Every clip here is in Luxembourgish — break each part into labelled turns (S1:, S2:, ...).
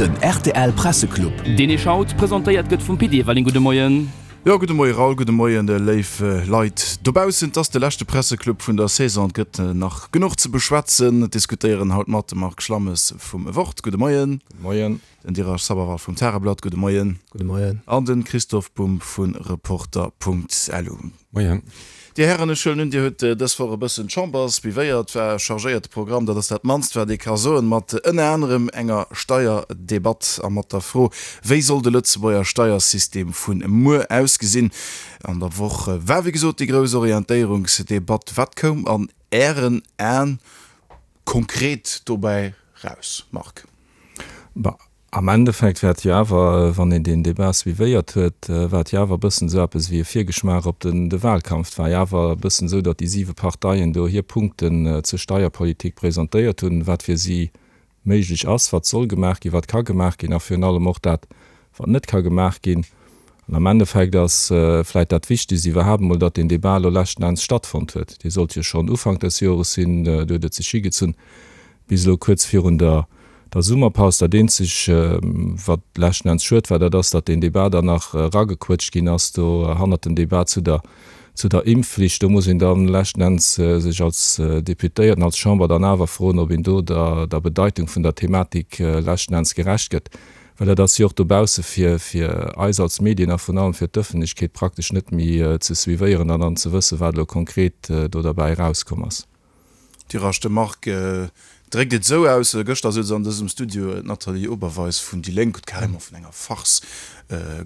S1: Den rtl Presseclub.
S2: Deen Iech haut presentéiert gëtt vum Pit Everling. Gudde Moien.
S3: Jo, gudde Moie Raoul, gudde Moien léif Leit dobaussen. Et ass de leschte Presseclub vun der Saison. Et gëtt nach genuch ze beschwätzen. Et diskutéieren haut mat de Marc Schlammes vum Wort. Gudde Moien.
S4: Gudde Moien.
S3: Den Dirasch Sabharwal vum Tageblatt. Gudde Moien.
S4: Gudde Moien.
S3: An de Christoph Bumb vu Reporter.lu.
S4: Moien.
S3: Dir Hären, ech huelen un, Dir hutt dës Woch e bëssen d'Chamber suivéiert. War e chargéierte Programm, dat ass dat mannst, wat ee ka soen, mat ënner anerem enger Steierdebatt a mat der Fro, Wéi soll de Lëtzebuerger Steiersystem vu muer ausgesinn? An der Woch war, wéi gesot, déi grouss Orientéierungsdebatt. Wat koum an Ären Aen konkret dobäi raus, Marc?
S4: Bah, am Endeffekt war et jo awer, wann een deen Débat suivéiert huet, war et jo awer e bëssen esou eppes wéi e Virgeschmaach op den de Wahlkampf. Et war jo awer e bëssen esou, datt déi siwe Parteien do hir Punkten zur Steierpolitik presentéiert hunn, wat fir si méiglech ass, wat soll gemaach ginn, wat ka gemaach ginn a virun allem och dat, wat net ka gemaach ginn. An am Endeffekt ass vläicht dat Wichtigst iwwerhaapt emol, datt deen Débat elo leschten Enns stattfonnt huet. Dee sollt jo schonn Ufank des Jores sinn, do huet et sech higezunn bis elo kuerz virun der der Summerpaus. Dat eenzeg, wat leschten Enns schued war, dat ass, datt deen Débat dann nach eragequëtscht ginn ass do hannert den Débat zu der zu der Impfflicht. Do muss een dann leschten Enns sech als Deputéierten, als Chamber dann awer froen, ob een do der der Bedeitung vun der Thematik leschten Enns gerecht gëtt. Well dat ass jo och dobausse fir fir eis als Medien a vrun allem fir d'Ëffentlechkeet praktesch net méi ze suivéieren an dann ze wëssen, wat elo konkret do derbäi erauskomm ass.
S3: Tirage de Marc dréckt et esou aus, Gëschter souz an dësem Studio d'Nathalie Oberweis vun déi Lénk, huet carrément vun enger Farce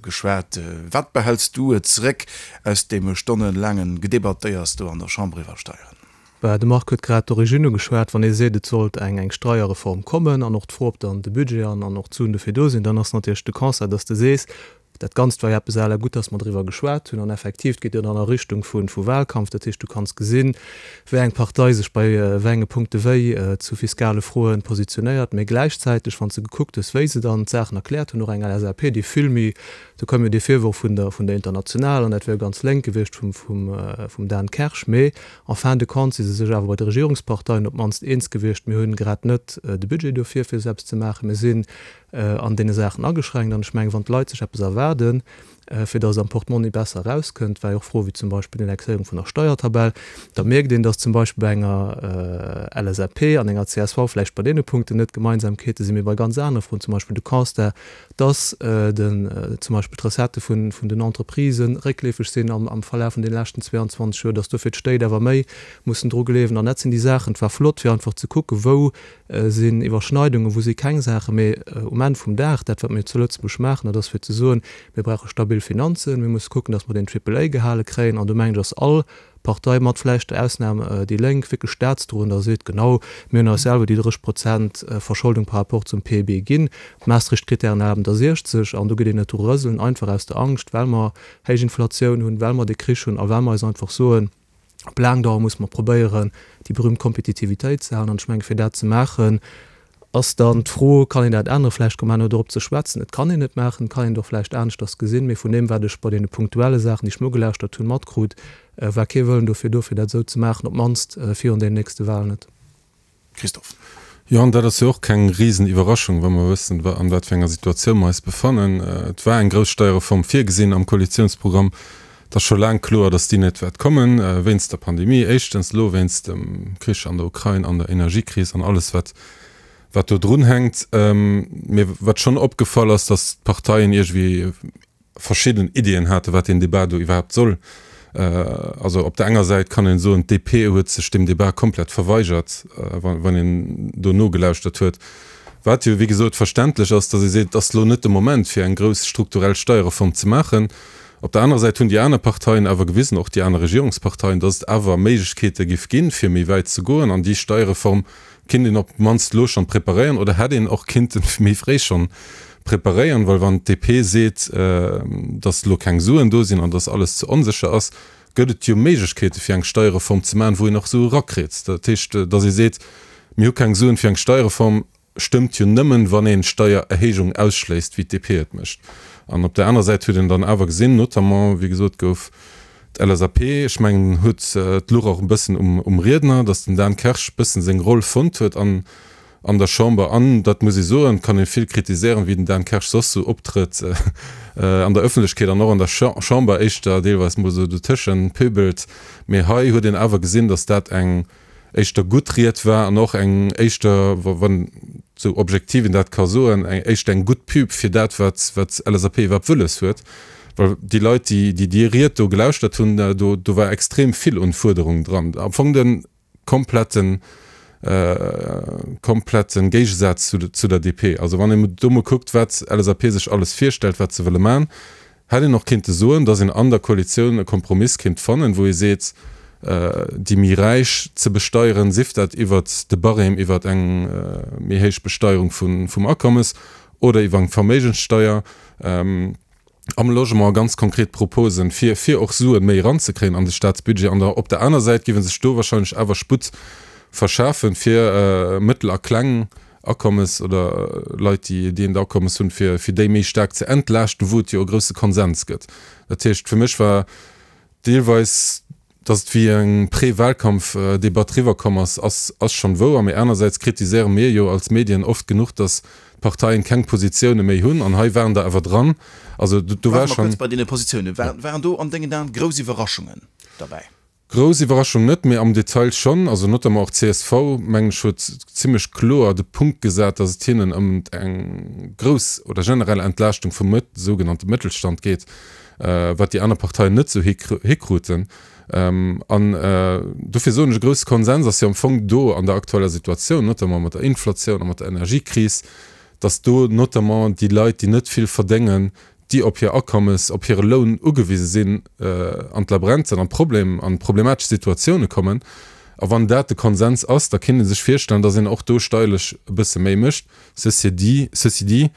S3: geschwat. Wat behäls du zeréck aus deem stonnelaange Gedebattéiers do an der Chamber iwwer Steieren?
S5: Bah, de Marc huet grad d'Origine ugeschwat. Wann ee seet, et sollt eng eng Steierreform kommen an och d'Fro, ob dann de Budget an an och d'Suen dofir do sinn, dann ass natierlech de Constat, dass de sees, Dat Ganzt war jo eppes à la gutt, dass mer driwwer geschwat hunn. An effektiv, et geet jo dann a Richtung vu Wahlkampf. Dat heescht, du kanns gesinn, wéi eng Partei sech bei wéi enge Punkte wéi zu fiskale Froen positionéiert. Mee gläichzäiteg, wann s de gekuckt hues, wéi se dann d'Saachen erkläert hunn, och eng LSAP, déi vill méi, do koum jo dee Virworf vun der vun der Internationale, an dat wär jo ganz lénk gewiescht vum vum Dan Kersch. Mee en fin de compte si se sech awer bei de Regierungsparteien op d'mannst eens gewiescht, mir hunn grad net de Budget dofir, fir esou eppes ze maachen. Mir sinn an deene Saachen ageschränkt. An ech mengen, wann d'Leit sech eppes erwaarden, fir datt et am Portmonni besser erauskënnt, war jo och Froe wéi zum Beispill d'Indexéierung vun der Steiertabell, da mierkt een, datt zum Beispill bei enger LSAP an enger csv vläicht bei deene Punkten net Gemeinsamkeete sinn, mee bei ganz anere Froen, zum Beispill de Constat, datt den zum Beispill d'Recettë vun den Entreprisë réckleefeg sinn am Verlaf vun deene leschten 22 Joer, datt dofir d'Stéit awer méi mussen dru gleewen. An dat sinn déi Saachen, et war flott fir einfach ze kucken, wou sinn Iwwerschneidungen, wou si keng Saachen, mee um Enn vum Dag, dat wat mir zu Lëtzebuerg maachen, dat ass fir ze soen, mir brauche stabil Finanzen, mir musse kucken, datt mer den Triple A gehale kréien an do mengen ech ass all Partei, mat vläicht der Ausnam déi Lénk, wierklech staatsdroend a seet, genau, mir hunn eis selwer déi 30 Prozent Verscholdung par rapport zum PIB ginn, d'Maastricht-Kritären erlaben der 60 an do geet een net dru rëselen, einfach aus der Angscht, well mer héich Inflatioun hunn, well mer de Krich hunn a well mer eis einfach soen, Op laang Dauer muss mer probéieren, déi berühmt Kompetitivitéit ze halen. An ech mengen, fir dat ze maachen, ass dann d'Fro, Kann een dat änneren? Vläicht komme mer herno dorop ze schwätzen. Et kann een et maachen, et kann een et och vläicht aneschters gesinn. Mee vun deem, wat ech bei deene punktuelle Saachen, déi ech mer ugelauschtert hunn, matkrut, war kee Wëllen dofir do, fir dat esou ze maachen, op d'mannst virun deenen nächste Wahlen net.
S3: Christophe.
S6: Jo, an dat ass jo och keng Risen-Iwwerraschung, wa mer wëssen, an wat fir enger Situatioun mer eis befannen. Et war eng grouss Steierreform virgesinn am Koalitionsprogramm. Et ass scho laang kloer, datt déi net wäert kommen, wéinst der Pandemie éischtens, elo wéinst dem Krich an der Ukrain an der Energiekris an alles, wat, wat do drunhänkt. Mee wat schonn opgefall ass, datt d'Parteien iergendwéi verschidden Iddien haten, wat deen Débat do iwwerhaapt soll. Also op der enger Säit kann een soen, d'DP huet sech deem Débat komplett verweigert, wann een do nogelauschtert huet. Wat jo, wéi gesot, verständlech ass, datt ee seet, et ass elo net de Moment, fir eng grouss strukturell Steierreform ze maachen. Op der anerer Säit hunn déi aner Parteien awer gewisen, och déi aner Regierungsparteien, datt et awer Méiglechkeete giff ginn, fir méi wäit ze goen an déi Steierreform Kinnt een op d'mannst elo schonn preparéieren oder hätt een och kinnten méi fréi schonn preparéieren, well wann d'DP seet, datt elo keng Suen do sinn an datt alles ze onsécher ass, gëtt et jo Méiglechkeete fir eng Steierreform ze maachen, wou een och Sue rakritt. Dat heescht, datt ee seet, mir hu keng Suen fir eng Steierreform, stëmmt jo nëmmen, wann een Steiererhéijung ausschléisst, wéi d'DP et mécht. An op där anerer Säit huet een dann awer gesinn, notamment, wéi gesot gouf, D'LSAP, ech mengen, huet d'Luch och e bëssen um Riedner, datt den Dan Kersch bëssen seng Roll fonnt huet an. An der Chamber, an dat muss ee soen, kann ee vill kritiséieren, wéi den Dan Kersch soss sou optrëtt an der Ëffentlechkeet an och an der Chamber, éischter deelweis mol sou dotëschent pöbelt, mee hei huet een awer gesinn, datt dat eng éischter gutt Ried war an och eng éischter, wann sou objektiv een dat ka soen, eng éischter eng gutt Pub fir dat, wat wat LSAP iwwerhaapt wëlles huet. Well déi Leit, déi déi déi Ried do gelauschtert hunn, do do war extrem vill un Fuerderungen dran. Am Fong de kompletten kompletten Géigesaz zu der DP. Also wann een do mol kuckt, wat LSAP sech alles virstellt, wat se wëlle man, hätt een och kéinte soen, datt een an der Koalitioun e Kompromiss kéint fannen, wou ee seet, déi méi Räich ze besteieren, sief dat iwwert de Barème, iwwert eng méi héich Besteierung vum Akommes oder iwwer eng Verméigenssteier. Am Logement ganz konkret Proposen, fir fir och Suen méi eranzekréien an de Staatsbudget. An der op der aner Säit géif e sech do wahrscheinlech awer Sputt verschafen, fir mëttel a kleng Akommes oder Leit, déi déi eent Akommes hunn, fir fir déi méi staark ze entlaaschten, wou et jo e grousse Konsens gëtt. Dat heescht, fir mech war deelweis Dass et wéi eng Pré-Wahlkampf-Debatt riwwerkomm ass, ass ass schonn wouer. Mee anersäits kritiséiere mir jo als Medien oft genuch, dass d'Parteien keng Positioune méi hunn. An hei waren der awer dran. Also do war
S3: Bleiwe mer
S6: schonn.
S3: kuerz bei deene Positiounen. Waren do an dengen Aen grouss Iwwerraschungen derbäi?
S6: Grouss Iwwerraschung net, mee am Detail schonn. Also notamment och csv, mengen ech, huet zimmlech kloer de Punkt gesat, dass et hinnen ëm eng grouss oder generell Entlaaschtung vum sougenannte Mëttelstand geet. wat déi aner Parteien net esou hikruten. An dofir soen ech, e grousse Konsens ass jo am Fong do an der aktueller Situatioun, notamment mat der Inflatioun a mat der Energiekris, datt do notamment déi Leit, déi net vill verdéngen, déi op hir Akommes, op hire Loun ugewise sinn, an d'Labränzen, an Problem, an problematesch Situatioune kommen. A wann dat de Konsens ass, da kéint ee sech virstellen, datt een och do steierlech e bësse méi mécht. Ceci dit, ceci dit,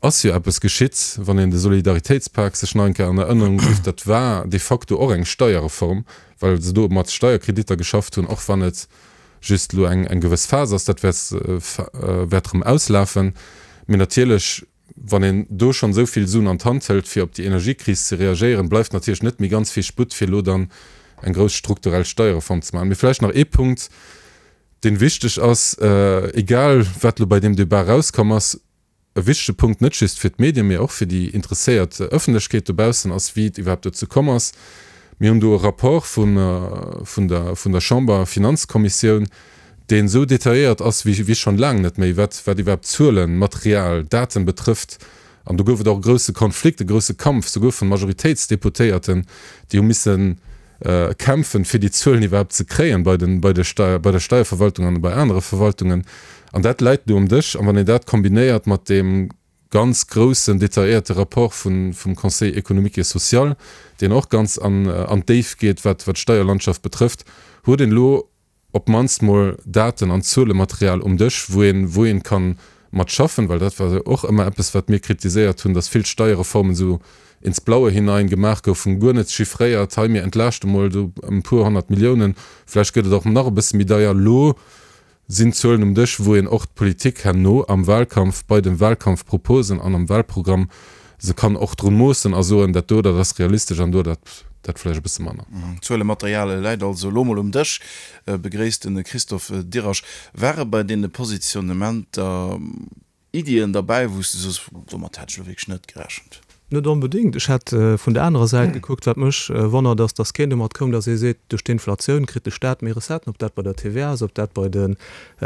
S6: Ass jo eppes geschitt, wann een de Solidaritéitspak sech nach eng Kéier an Erënnerung rifft, dat war de facto och eng Steierreform, well se do mat Steierkreditter geschafft hunn, och wann et just elo eng eng gewëss Phas ass, dat wäert wäert erëm auslafen. Mee natierlech, wann een do schonn esou vill Suen an d'Hand hëlt, fir op déi Energiekris ze reagéieren, bleift natierlech net méi ganz vill Sputt, fir elo dann eng grouss strukturell Steierreform ze maachen. Mee vläicht nach ee Punkt, deen wichteg ass, egal wat elo bei deem Debat erauskomm ass, E wichtege Punkt, net just fir d'Medien, mee och fir déi interesséiert Ëffentlechkeet dobaussen, ass, wéi et iwwerhaapt dozou komm ass. Mir hunn do e Rapport vun der vun der Chamber-Finanzkommissioun, deen esou detailléiert ass wéi wéi schonn laang net méi, wat wat iwwerhaapt Zuelen, Material, Daten betrëfft. An do gouf et och e grousse Konflikt, e grousse Kampf, souguer vun Majoritéitsdeputéierten, déi hu missen kämpfen, fir déi Zuelen iwwerhaapt ze kréien bei den, bei de Steier, bei der Steierverwaltung an bei anere Verwaltungen. An dat läit elo um Dësch. An wann een dat kombinéiert mat deem ganz groussen, detailléierte Rapport vun, vum Conseil économique et social, deen och ganz an, an d'Déift geet, wat, wat d'Steierlandschaft betrëfft, huet een elo op d'mannst mol Daten an Zuelematerial um Dësch, wou een, wou een kann mat schaffen, well dat war jo och ëmmer eppes, wat mir kritiséiert hunn, dass vill Steierreformen esou ins Blaue hinein gemaach goufen, guer net chiffréiert, hei mir entlaaschte mol do ëm e puer 100 Milliounen, vläicht gëtt et och nach e bësse méi deier. Elo sinn Zuelen um Dësch, wou een och d'Politik herno am Wahlkampf, bei de Wahlkampfproposen an am Wahlprogramm se kann och drun moossen a soen, dat do, dat ass realistesch an do, dat, dat vläicht e bësse manner.
S3: Zuelematerial läit also elo mol um Dësch, begréisst de Christophe Dirasch. Ware bei deene Positionnementer Iddien derbäi, wou s de soos, domat hat ech elo wierklech net gerechent?
S5: Net onbedéngt. Ech hätt vun der anerer Säit gekuckt. Wat mech wonnert, ass, datt keen domat koum, datt ee seet, duerch d'Inflatioun kritt de Staat méi Recetten, ob dat bei der TVA ass, ob dat bei de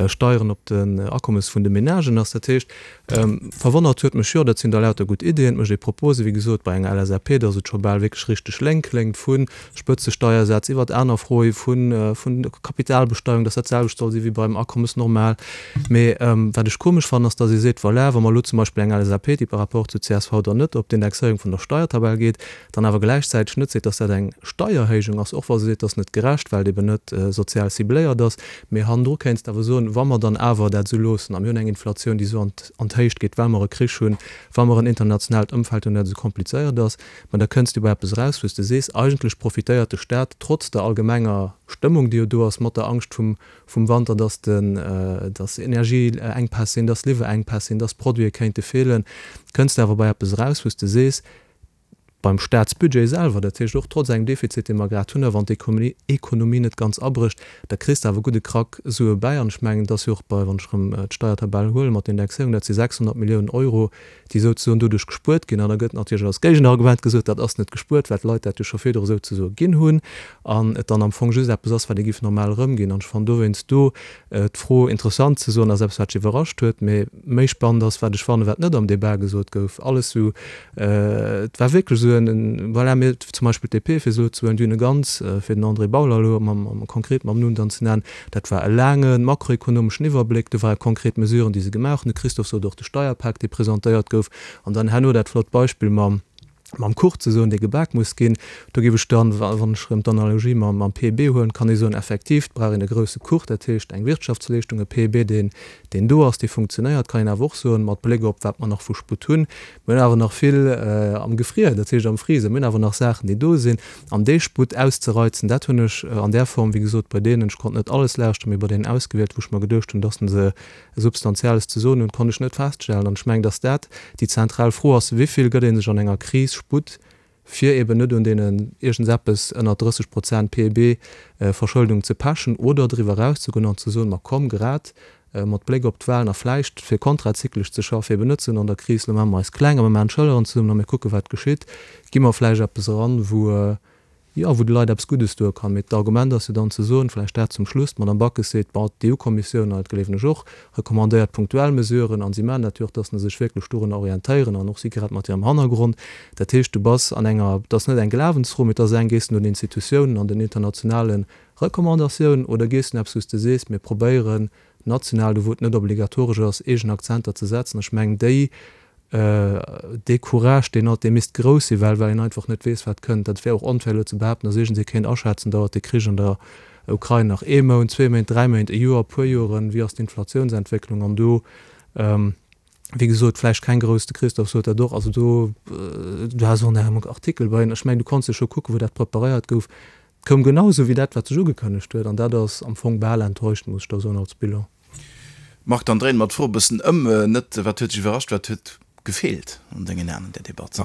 S5: Steieren op den Akommes vun de Menagen ass. Dat heescht, verwonnert huet mech, jo, dat sinn der lauter gutt Iddien, et mécht ee Propose, wéi gesot, bei enger LSAP, datt et scho bal wierklech richteg lénk kléngt, vu Spëtzesteiersätz iwwert aner Froe vun Kapitalbesteierung, datt dat d'selwecht soll si wéi beim Akommes normal. Mee wat ech komesch fannen, ass, datt ee seet, voilà, wa mer elo zum Beispill eng LSAP, déi par rapport zu csv dann net op d'Indexéierung vun der Steiertabell geet, dann awer gläichzäiteg net seet, datt dat eng Steierhéijung ass, och wa se seet, dat ass net gerecht, well et eben net sozial cibléiert ass. Mee hannendru kéints de awer soen, wa mer dann awer dat esou loossen a mir hunn eng Inflatioun, déi esou an d'Héicht geet, well mer e Krich hunn, wa mer en internationaalt Ëmfeld hunn, dat esou komplizéiert ass, ma da kënns du bei eppes eraus, wou s de sees, eigentlech profitéiert de Staat trotz der allgemenger Stëmmung, déi jo do ass, mat der Angscht vum vum Wanter, dass den, dass Energieenkpäss sinn, dass Liwwerengpäss sinn, dass Produite kéinte feelen, kënns de awer bei eppes eraus, wou s de sees, Beim Staatsbudget selwer, dat heescht och trotz engem Defizit, dee mer grad hunn, a wann d'Ekonomie net ganz abrécht, da kriss de awer gudde Krack Sue bäi. An ech mengen, et ass jo och bei, wann ech erëm d'Steiertabell huelen mat der Indexéierung, dat si 600 Milliounen Euro, déi souzesoen doduerch gespuert ginn. An da gëtt natierlech als Géigenargument gesot, dat ass net gespuert, well d'Leit dat jo scho virdru souzesoe ginn hunn an et dann am Fong just eppes ass, wat ee giff normal erëmginn. An ech fannen dowéinst do d'Fro interessant ze soen, ass eppes, wat mech iwwerrascht huet. Mee méi spannend ass, wat ech fannen, wat net am Debat gesot gouf, alles esou, et war wierklech esou en, voilà, mir, zum Beispill d'DP, fir se elo ze huelen, déi hunn e ganz, fir den André Bauler elo mam, konkret mam Numm dann ze nennen, dat war e laange makroekonomeschen Iwwerbléck, do ware konkret Mesuren, déi se gemaach hunn. De Christophe sot och, de Steierpak, dee presentéiert gouf, an dann herno dat flott Beispill mam, mam Kuch ze soen, dee gebak muss ginn. Do géif ech dann, wann ech erëm d'Analogie mam, mam PIB huelen, kann ee soen, effektiv, et brauch een e grousse Kuch, dat heescht eng Wirtschaftsleeschtung, e PIB, deen, deen do ass, dee funktionéiert, kann een awer och soen, mat Bléck op wat mer nach vu Sputt hunn, mir hunn awer nach vill am Gefrier, dat heescht am Freezer, mir hunn awer nach Saachen, déi do sinn. An dee Sputt auszereizen, dat hunn ech an där Form, wéi gesot, bei deenen, ech konnt net alles lauschteren, mee bei deenen ausgewielt, wou ech mer geduecht hunn, dass se Substanzielles ze soen hunn, konnt ech net feststellen. An ech mengen, dass dat déi zentral Fro ass, Wéivill gëtt ee sech an enger Kris Sputt, fir eben net un deenen iergendseppes ënner 30 Prozent PIB Verschëldung ze pechen oder driwwer erauszegoen an ze soen, ma komm, grad mat Bléck op d'Wahlen a vläicht fir kontrazyklesch ze schaffen, eben net ze soen, an der Kris, lo maache mer eis kleng a mer maachen d'Schëlleren zesummen a mir kucken, wat geschitt, gi mer vläicht eppes eran, wou Jo, wou de Leit eppes Guddes doe kann. Mee d'Argument ass jo dann ze soen, vläicht dat zum Schluss, d'Madame Backes seet, bon, d'EU-Kommissioun, an dat gleewen ech och, recommandéiert punktuell Mesuren, an si maachen dat jo och, dass se sech wierklech dorunner orientéieren, an och si grad mat hirem Hannergrond. Dat heescht, du bass an enger, et ass net eng Glawensfro, mee et ass eng, gees du no den Institutiounen an den internationale Recommandatiounen oder gees du no eppes, wou s de sees, mir probéieren national, do wou et net obligatoresch ass, eegen Akzenter ze setzen. Ech mengen, déi Dee Courage, deen hat, dee misst grouss sinn, well well een einfach net weess, wat kënnt. Dat wär och onfair elo ze behaapten, datt iergendsee kéint aschätzen, dauert de Krich an der Ukrain nach ee Mount, zwee Méint, dräi Méint, e Joer, e puer Joren, wéi ass d'Inflatiounsentwécklung? An do, wéi gesot, vläicht keng grouss, de Christophe sot dat och, also do, du has och an engem Artikel bei, ech mengen, du konns jo scho kucken, wou dat preparéiert gouf, et koum genau esou wéi dat, wat sech ugekënnegt huet, an dat ass am Fong bal enttäuscht, muss ech da soen, als Bilan.
S3: Marc, dann dréine mer d'Fro e bëssen ëm. Net wat huet dech iwwerrascht, wat huet gefeelt an dengen Aen an där Debatt?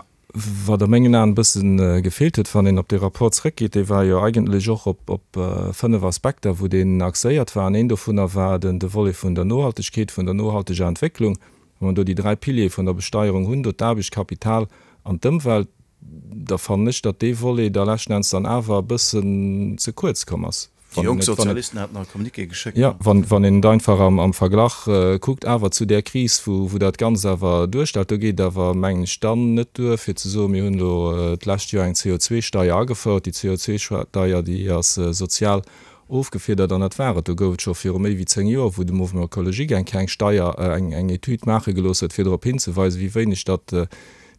S4: Wat a mengen Aen e bësse gefeelt huet, wann een op dee Rapport zrëckgeet, dee war jo eigentlech och op 5 Aspekter, wou deen axéiert war. An een dovunner war den de Volet vun der Nohaltegkeet, vun der nohalteger Entwécklung. Wa mer do déi dräi Piliere vun der Besteierung hunn, do d'Aarbecht, d'Kapital an d'Ëmwelt, da fannen ech, datt dee Volet da leschten Enns dann awer e bëssen ze kuerz komm ass.
S3: Déi jonk Sozialisten haten nach e Communiqué geschéckt.
S4: Jo, wann een et einfach am Verglach kuckt awer zu där Kris, wou dat Ganzt awer duerstellt, do geet et awer, mengen ech, dann net duer, fir ze soen, mir hunn elo d'lescht Joer eng CO2-Steier agefouert. Déi CO2-Steier, déi ass sozial ofgefiedert an dat war et. Do gouf et scho viru méi wéi 10 Joer, wou de Mouvement écologique eng kleng Steier, eng Etüd maache gelooss huet, fir drop hinzeweisen, wéi wéineg datt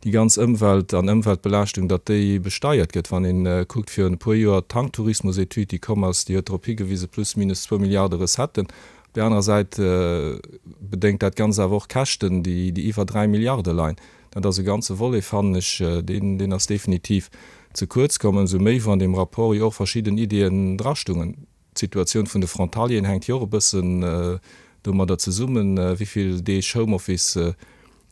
S4: déi ganz Ëmwelt an Ëmweltbelaaschtung, datt déi besteiert gëtt. Wann ee kuckt, virun e puer Joer d'Tanktourismus-Etüd, déi komm ass, déi huet drop higewisen, plus minus zwou Milliarde Recetten. Op där anerer Säit bedéngt dat Ganzt awer och Käschten, déi iwwer 3 Milliarde leien. Dat ass e ganze Volet, fannen ech, deen ass definitiv ze kuerz komm, ëmsou méi wou an deem Rapport jo och verschidden Ideeën drastungen. D'Situatioun vun de Frontalieren hänkt jo och e bëssen domadder zesummen, wéi vill Deeg Homeoffice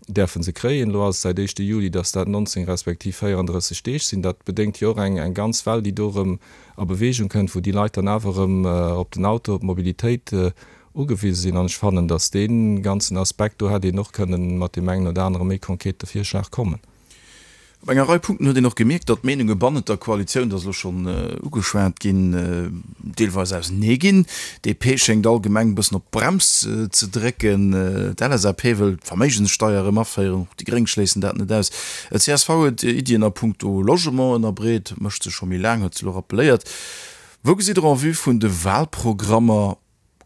S4: däerfe se kréien. Elo ass et säit éischte Juli, datt dat 19 respektiv 34 Deeg sinn. Dat bedéngt jo och eng ganz Well, déi do erëm a Beweegung kënnt, wou déi Leit dann awer erëm op den Auto, op d'Mobilitéit ugewise sinn. An ech fannen, datt dee ganzen Aspekt, do hätt een och kënnen mat deem engen oder anere méi konkrete Virschlag kommen.
S3: Op enger Rei Punkten huet een och gemierkt, datt d'Meenunge bannent der Koalitioun, dat ass elo schonn ugeschwat ginn, deelweis ausenee ginn. DP schéngt allgemeng e bëssen op d'Brems ze drécken. D'LSAP wëll d'Verméigenssteier erëm aféieren, och déi Gréng schléissen dat net aus. Csv huet Iddien a punkto Logement ënnerbreet, mécht se scho méi laang, huet se elo rappeléiert. Wou gesitt Der en vue vun de Wahlprogrammer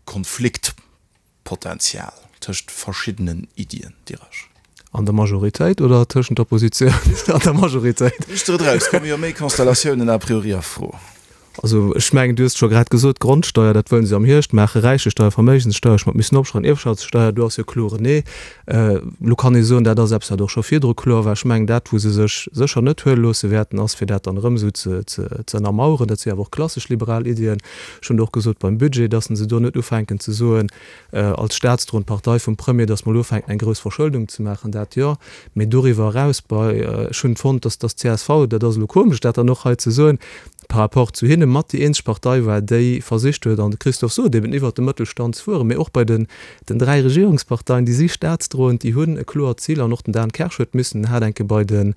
S3: Konflikt? Potenzial tëscht verschiddenen Iddien, Diresch.
S5: An der Majoritéit oder tëschent der Oppositioun an der Majoritéit?
S3: Riicht der et eraus, komme jo méi Konstellatiounen a priori a Fro.
S5: Also ech mengen, du hues et scho grad gesot, d'Grondsteuer, dat wëllen se am Hierscht maachen, Räichesteuer, Verméigenssteuer, ech mat missen opschreiwen, Ierfschaftssteuer, do ass jo kloer en Nee. Elo kann ee soen, dat ass eppes, wat och scho virdru kloer war. Ech mengen, dat wou se sech sécher net huele loosse wäerten, ass fir dat dann erëm esou ze ze ënnermaueren. Dat si awer och klassesch liberal Iddien. Ech hunn et och gesot beim Budget, datt se do net ufänken ze soen, als staatsdroend Partei vum Premier, datt mer elo ufänken eng grouss Verschëldung ze maachen, dat jo, mee doriwwer eraus bei, ech hunn fonnt, datt datt d'CSV, dat ass elo komesch dat dann och hei ze soen, par rapport zu hinne mat déi eenzeg Partei war, déi versicht huet, an de Christophe sot eben, iwwert de Mëttelstand ze fueren, mee och bei den den 3 Regierungsparteien, déi si staatsdroend, déi hunn e kloert Zil an och den Dan Kersch huet missen, en hat enke bei den,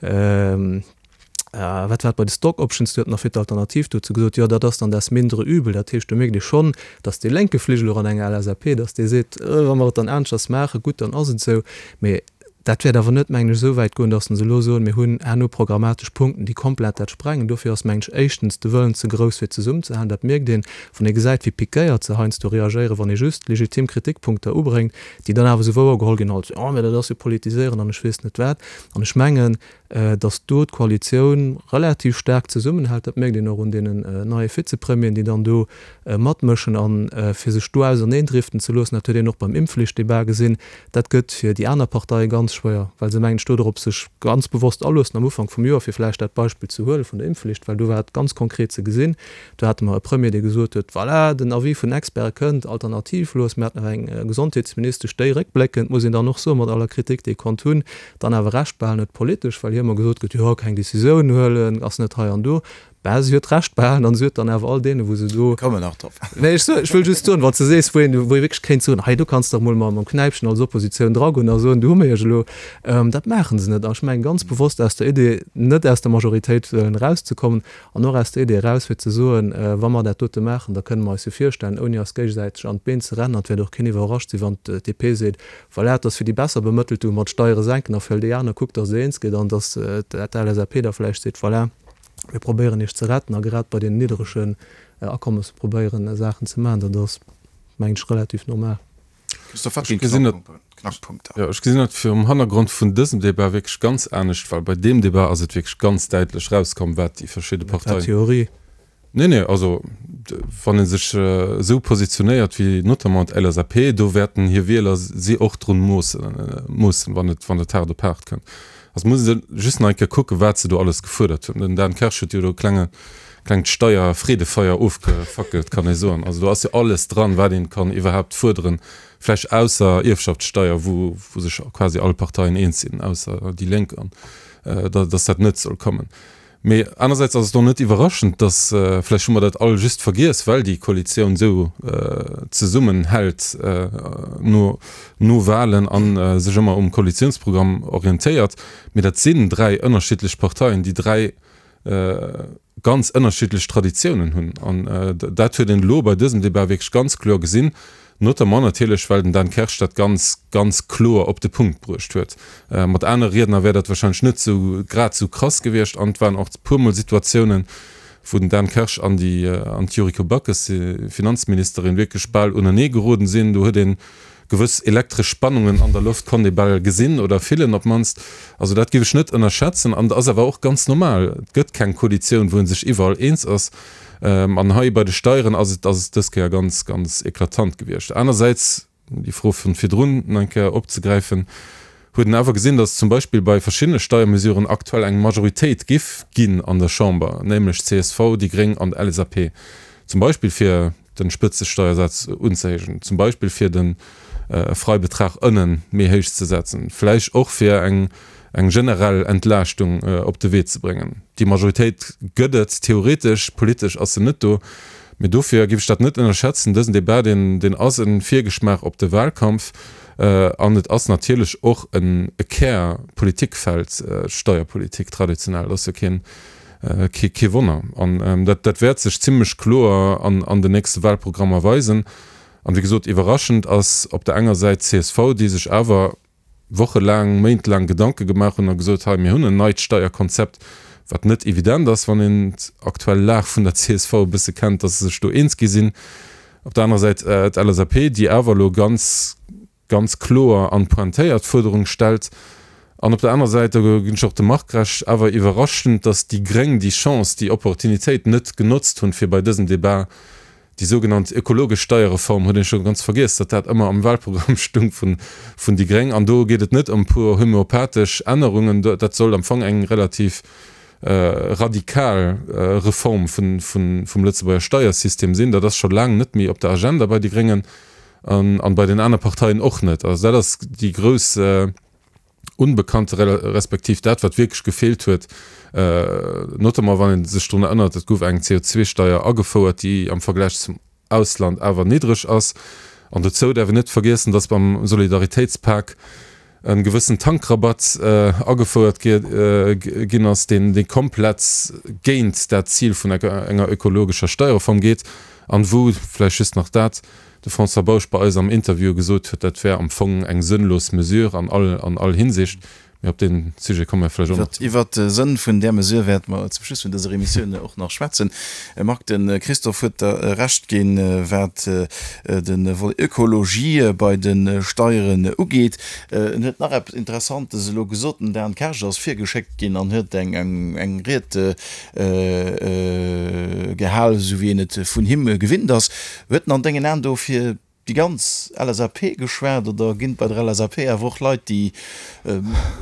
S5: wat war et, bei de Stock Options, do huet en nach fir d'Alternativ dozou gesot, jo dat ass dann das mindere Übel. Dat heescht, do mierkt ee schonn, datt dee lénke Fligel och an enger LSAP, datt dee seet, wa mer et dann aneschters maachen, gutt, dann ass et esou. Mee dat wäert awer net, mengen ech, esou wäit goen, datt se elo soen, mir hunn herno programmatesch Punkten, déi komplett dat sprengen. Dofir ass, mengen ech, éischtens de Wëllen ze grouss, fir zesummenzehalen. Dat mierkt een, wann ee gesäit, wéi piquéiert se heiansdo reagéieren, wann ee just legitim Kritikpunkter ubréngt, déi dann awer esou wouergeholl ginn als, jo, mä dat ass jo politiséieren an ech weess net wat. An ech mengen, datt do d'Koalitioun relativ staark zesummenhält, dat mierkt een och un deenen neie Vizepremieren, déi dann do matmëschen. A fir sech do auserneendriften ze loossen, dat huet een och beim Impfflichtdebat gesinn, dat gëtt fir déi aner Parteie ganz schwéier, well se, mengen ech, do drop sech ganz bewosst aloossen am Ufank vum Joer, fir vläicht dat Beispill ze huele vun der Impfflicht, well do war et ganz konkret ze gesinn, Do hate mer e Premier, dee gesot huet, Voilà, den Avis vun den Experte kënnt, alternativlos. Mir haten awer eng Gesondheetsministesch, déi réckbléckend, muss een dann och soen, mat aller Kritik, déi ee konnt hunn, dann awer Recht behalen huet politesch, well hir ëmmer gesot gëtt, jo, keng Decisioun huelen, ass net hei an do. Bah, si huet Recht behalen an si huet dann awer all deene, wou se do.
S3: Mir kommen nach drop.
S5: Nee, ech soen, ech wëll just soen, wann s de sees, wou een, wou ee wierklech kéint soen, hei do kanns de dach mol mam Knäipchen als Oppositioun dragoen a soen, do hu mir iech elo. Dat maache se net. An ech mengen ganz bewosst aus der Idee, net aus der Majoritéit wëllen erauszekommen, An och aus der Idee eraus, fir ze soen, wa mer dat dote maachen, da kënne mer eis jo virstellen, ouni eis géigesäiteg an d'Been ze rennen, an et wäert och keen iwwerrascht sinn, wann d'DP seet, voilà, et ass fir déi besser Bemëttelten, wou mer d'Steiere senken, a fir all déi aner kuckt, datt Der eens gitt, an datt d'LSAP da vläicht seet, voilà, mir probéieren Iech ze retten, a grad bei deenen nidderegen Akommesse probéieren Saachen ze maachen. Dat ass, mengen ech, relativ normal.
S3: Christophe, wat ginn d'Knackpunkter?
S6: Jo, ech gesinn dat virum Hannergrond vun dësem Débat wierklech ganz anescht, well bei deem Débat ass et wierklech ganz däitlech rauskomm, wat déi verschidde Parteien.
S5: Dat war Theorie.
S6: Nee, nee, also wann ee sech esou positionéiert wéi notamment d'LSAP, do wäerten hir Wieler si och drun moossen, moossen, wann et, wann et haart op haart kënnt. Also muss ee just nach eng Kéier kucken, wat se do alles gefuerdert hunn. Den Dan Kersch huet jo do e klenge, klengt Steierfreedefeier ofgefackelt, kann ee soen. Also do ass jo alles dran, wat een kann iwwerhaapt fuerderen, vläicht ausser Ierfschaftssteier, wou, wou sech quasi all Parteien eens sinn, ausser déi Lénk, an datt dat net soll kommen. Mee anersäits ass et och net iwwerraschend, datt, vläicht hu mer dat all just vergiess, well déi Koalitioun esou zesummenhält no, no Wahlen a sech ëmmer um Koalitiounsprogramm orientéiert, mee dat sinn 3 ënnerschiddlech Parteien, déi 3 ganz ënnerschiddlech Traditiounen hunn. An dat huet een elo bei dësem Débat wierklech ganz kloer gesinn, notamment natierlech, well den Dan Kersch dat ganz, ganz kloer op de Punkt bruecht huet. Mat anere Riedner wär dat wahrscheinlech net esou grad esou krass gewiescht. An et waren och e puermol Situatiounen, wou den Dan Kersch an déi, an d'Yuriko Backes, Finanzministerin, wierklech bal unenee geroden sinn. Do huet een Gewëss elektresch Spannungen an der Loft konnt ee bal gesinn oder fillen op d'mannst. Also dat géif ech net ënnerschätzen an et ass awer och ganz normal. Et gëtt keng Koalitioun, wou ee sech iwwerall eens ass. An hei bei de Steieren ass et ass et dës Kéier ganz, ganz eklatant gewiescht. Anersäits, déi Fro vun virdrun nach eng Kéier opzegräifen, huet een awer gesinn, datt zum Beispill bei verschiddene Steiermesuren aktuell eng Majoritéit giff ginn an der Chamber, nämlech csv, déi Gréng an d'LSAP, zum Beispill fir den Spëtzesteiersaz unzehéijen, zum Beispill fir de Freibetrag ënnen méi héich ze setzen, vläicht och fir eng eng generell Entlaaschtung op de Wee ze bréngen. Déi Majoritéit gëtt et theoretesch, politesch ass se net do. Mee dofir géif ech dat net ënnerschätzen. Dësen Debat, deen deen ass e Virgeschmaach op de Wahlkampf an et ass natierlech och en e Kär-Politikfeld, d'Steierpolitik traditionell. Dat ass jo keen Kee Wonner. An dat dat wäert sech zimlech kloer an an den nächste Wahlprogrammer weisen. An wéi gesot, iwwerraschend ass op der enger Säit csv, déi sech awer wochelaang, méintelaang Gedanke gemaach hunn a gesot, hei mir hunn en neit Steierkonzept, wat net evident ass, wann een d'aktuell Lag vun der csv e bësse kennt, datt se sech do eens gi sinn. Op der anerer Säit d'LSAP, déi awer elo ganz, ganz kloer an pointéiert Fuerderung stellt. An op der anerer Säit, do ginn ech och dem Marc Recht, awer iwwerraschend, datt déi Gréng déi Chance, déi Opportunitéit net genotzt hunn, fir bei dësem Debat déi sougenannt ökologesch Steierreform, huet een scho ganz vergiess, datt dat ëmmer am Wahlprogramm stung vun vun déi Gréng, an do geet et net ëm puer homöopathesch Ännerungen, dat soll am Fong eng relativ radikal Reform vun vum Lëtzebuerger Steiersystem sinn. Dat ass scho laang net méi op der Agenda bei de Gréngen an bei den aner Parteien och net. Also dat ass déi grouss Unbekannte respektiv dat, wat wierklech gefeelt huet, notamment wann ee sech drun erënnert, et gouf eng CO2-Steier agefouert, déi am Vergläich zum Ausland awer niddreg ass. An dozou däerf een net vergiessen, datt beim Solidaritéitspak e gewëssen Tankrabatt agefouert ginn ass, deen komplett géint dat Zil vun enger ökologescher Steierreform geet an wou, vläicht just nach dat, de François Bausch bei eis am Interview gesot huet, dat wär am Fong eng sënnlos Mesure an all, an all Hinsicht. Mee op dee Sujet komme mer vläicht och nach
S3: zeréck. Iwwert de Sënn vun där Mesure wäerte mer zum Schluss vun dëser Emissioun och nach schwätzen. Marc, de Christophe huet der Recht ginn, wat de Volet Ökologie bei de Steieren ugeet. En huet nach eppes Interessantes elo gesot. Den Dan Kersch ass virgeschéckt ginn an huet eng Ried gehal, esou wéi een et vun him gewinnt ass. Huet en an dengen Aen do fir déi ganz LSAP geschwat oder ginn et bei der LSAP awer och Leit, déi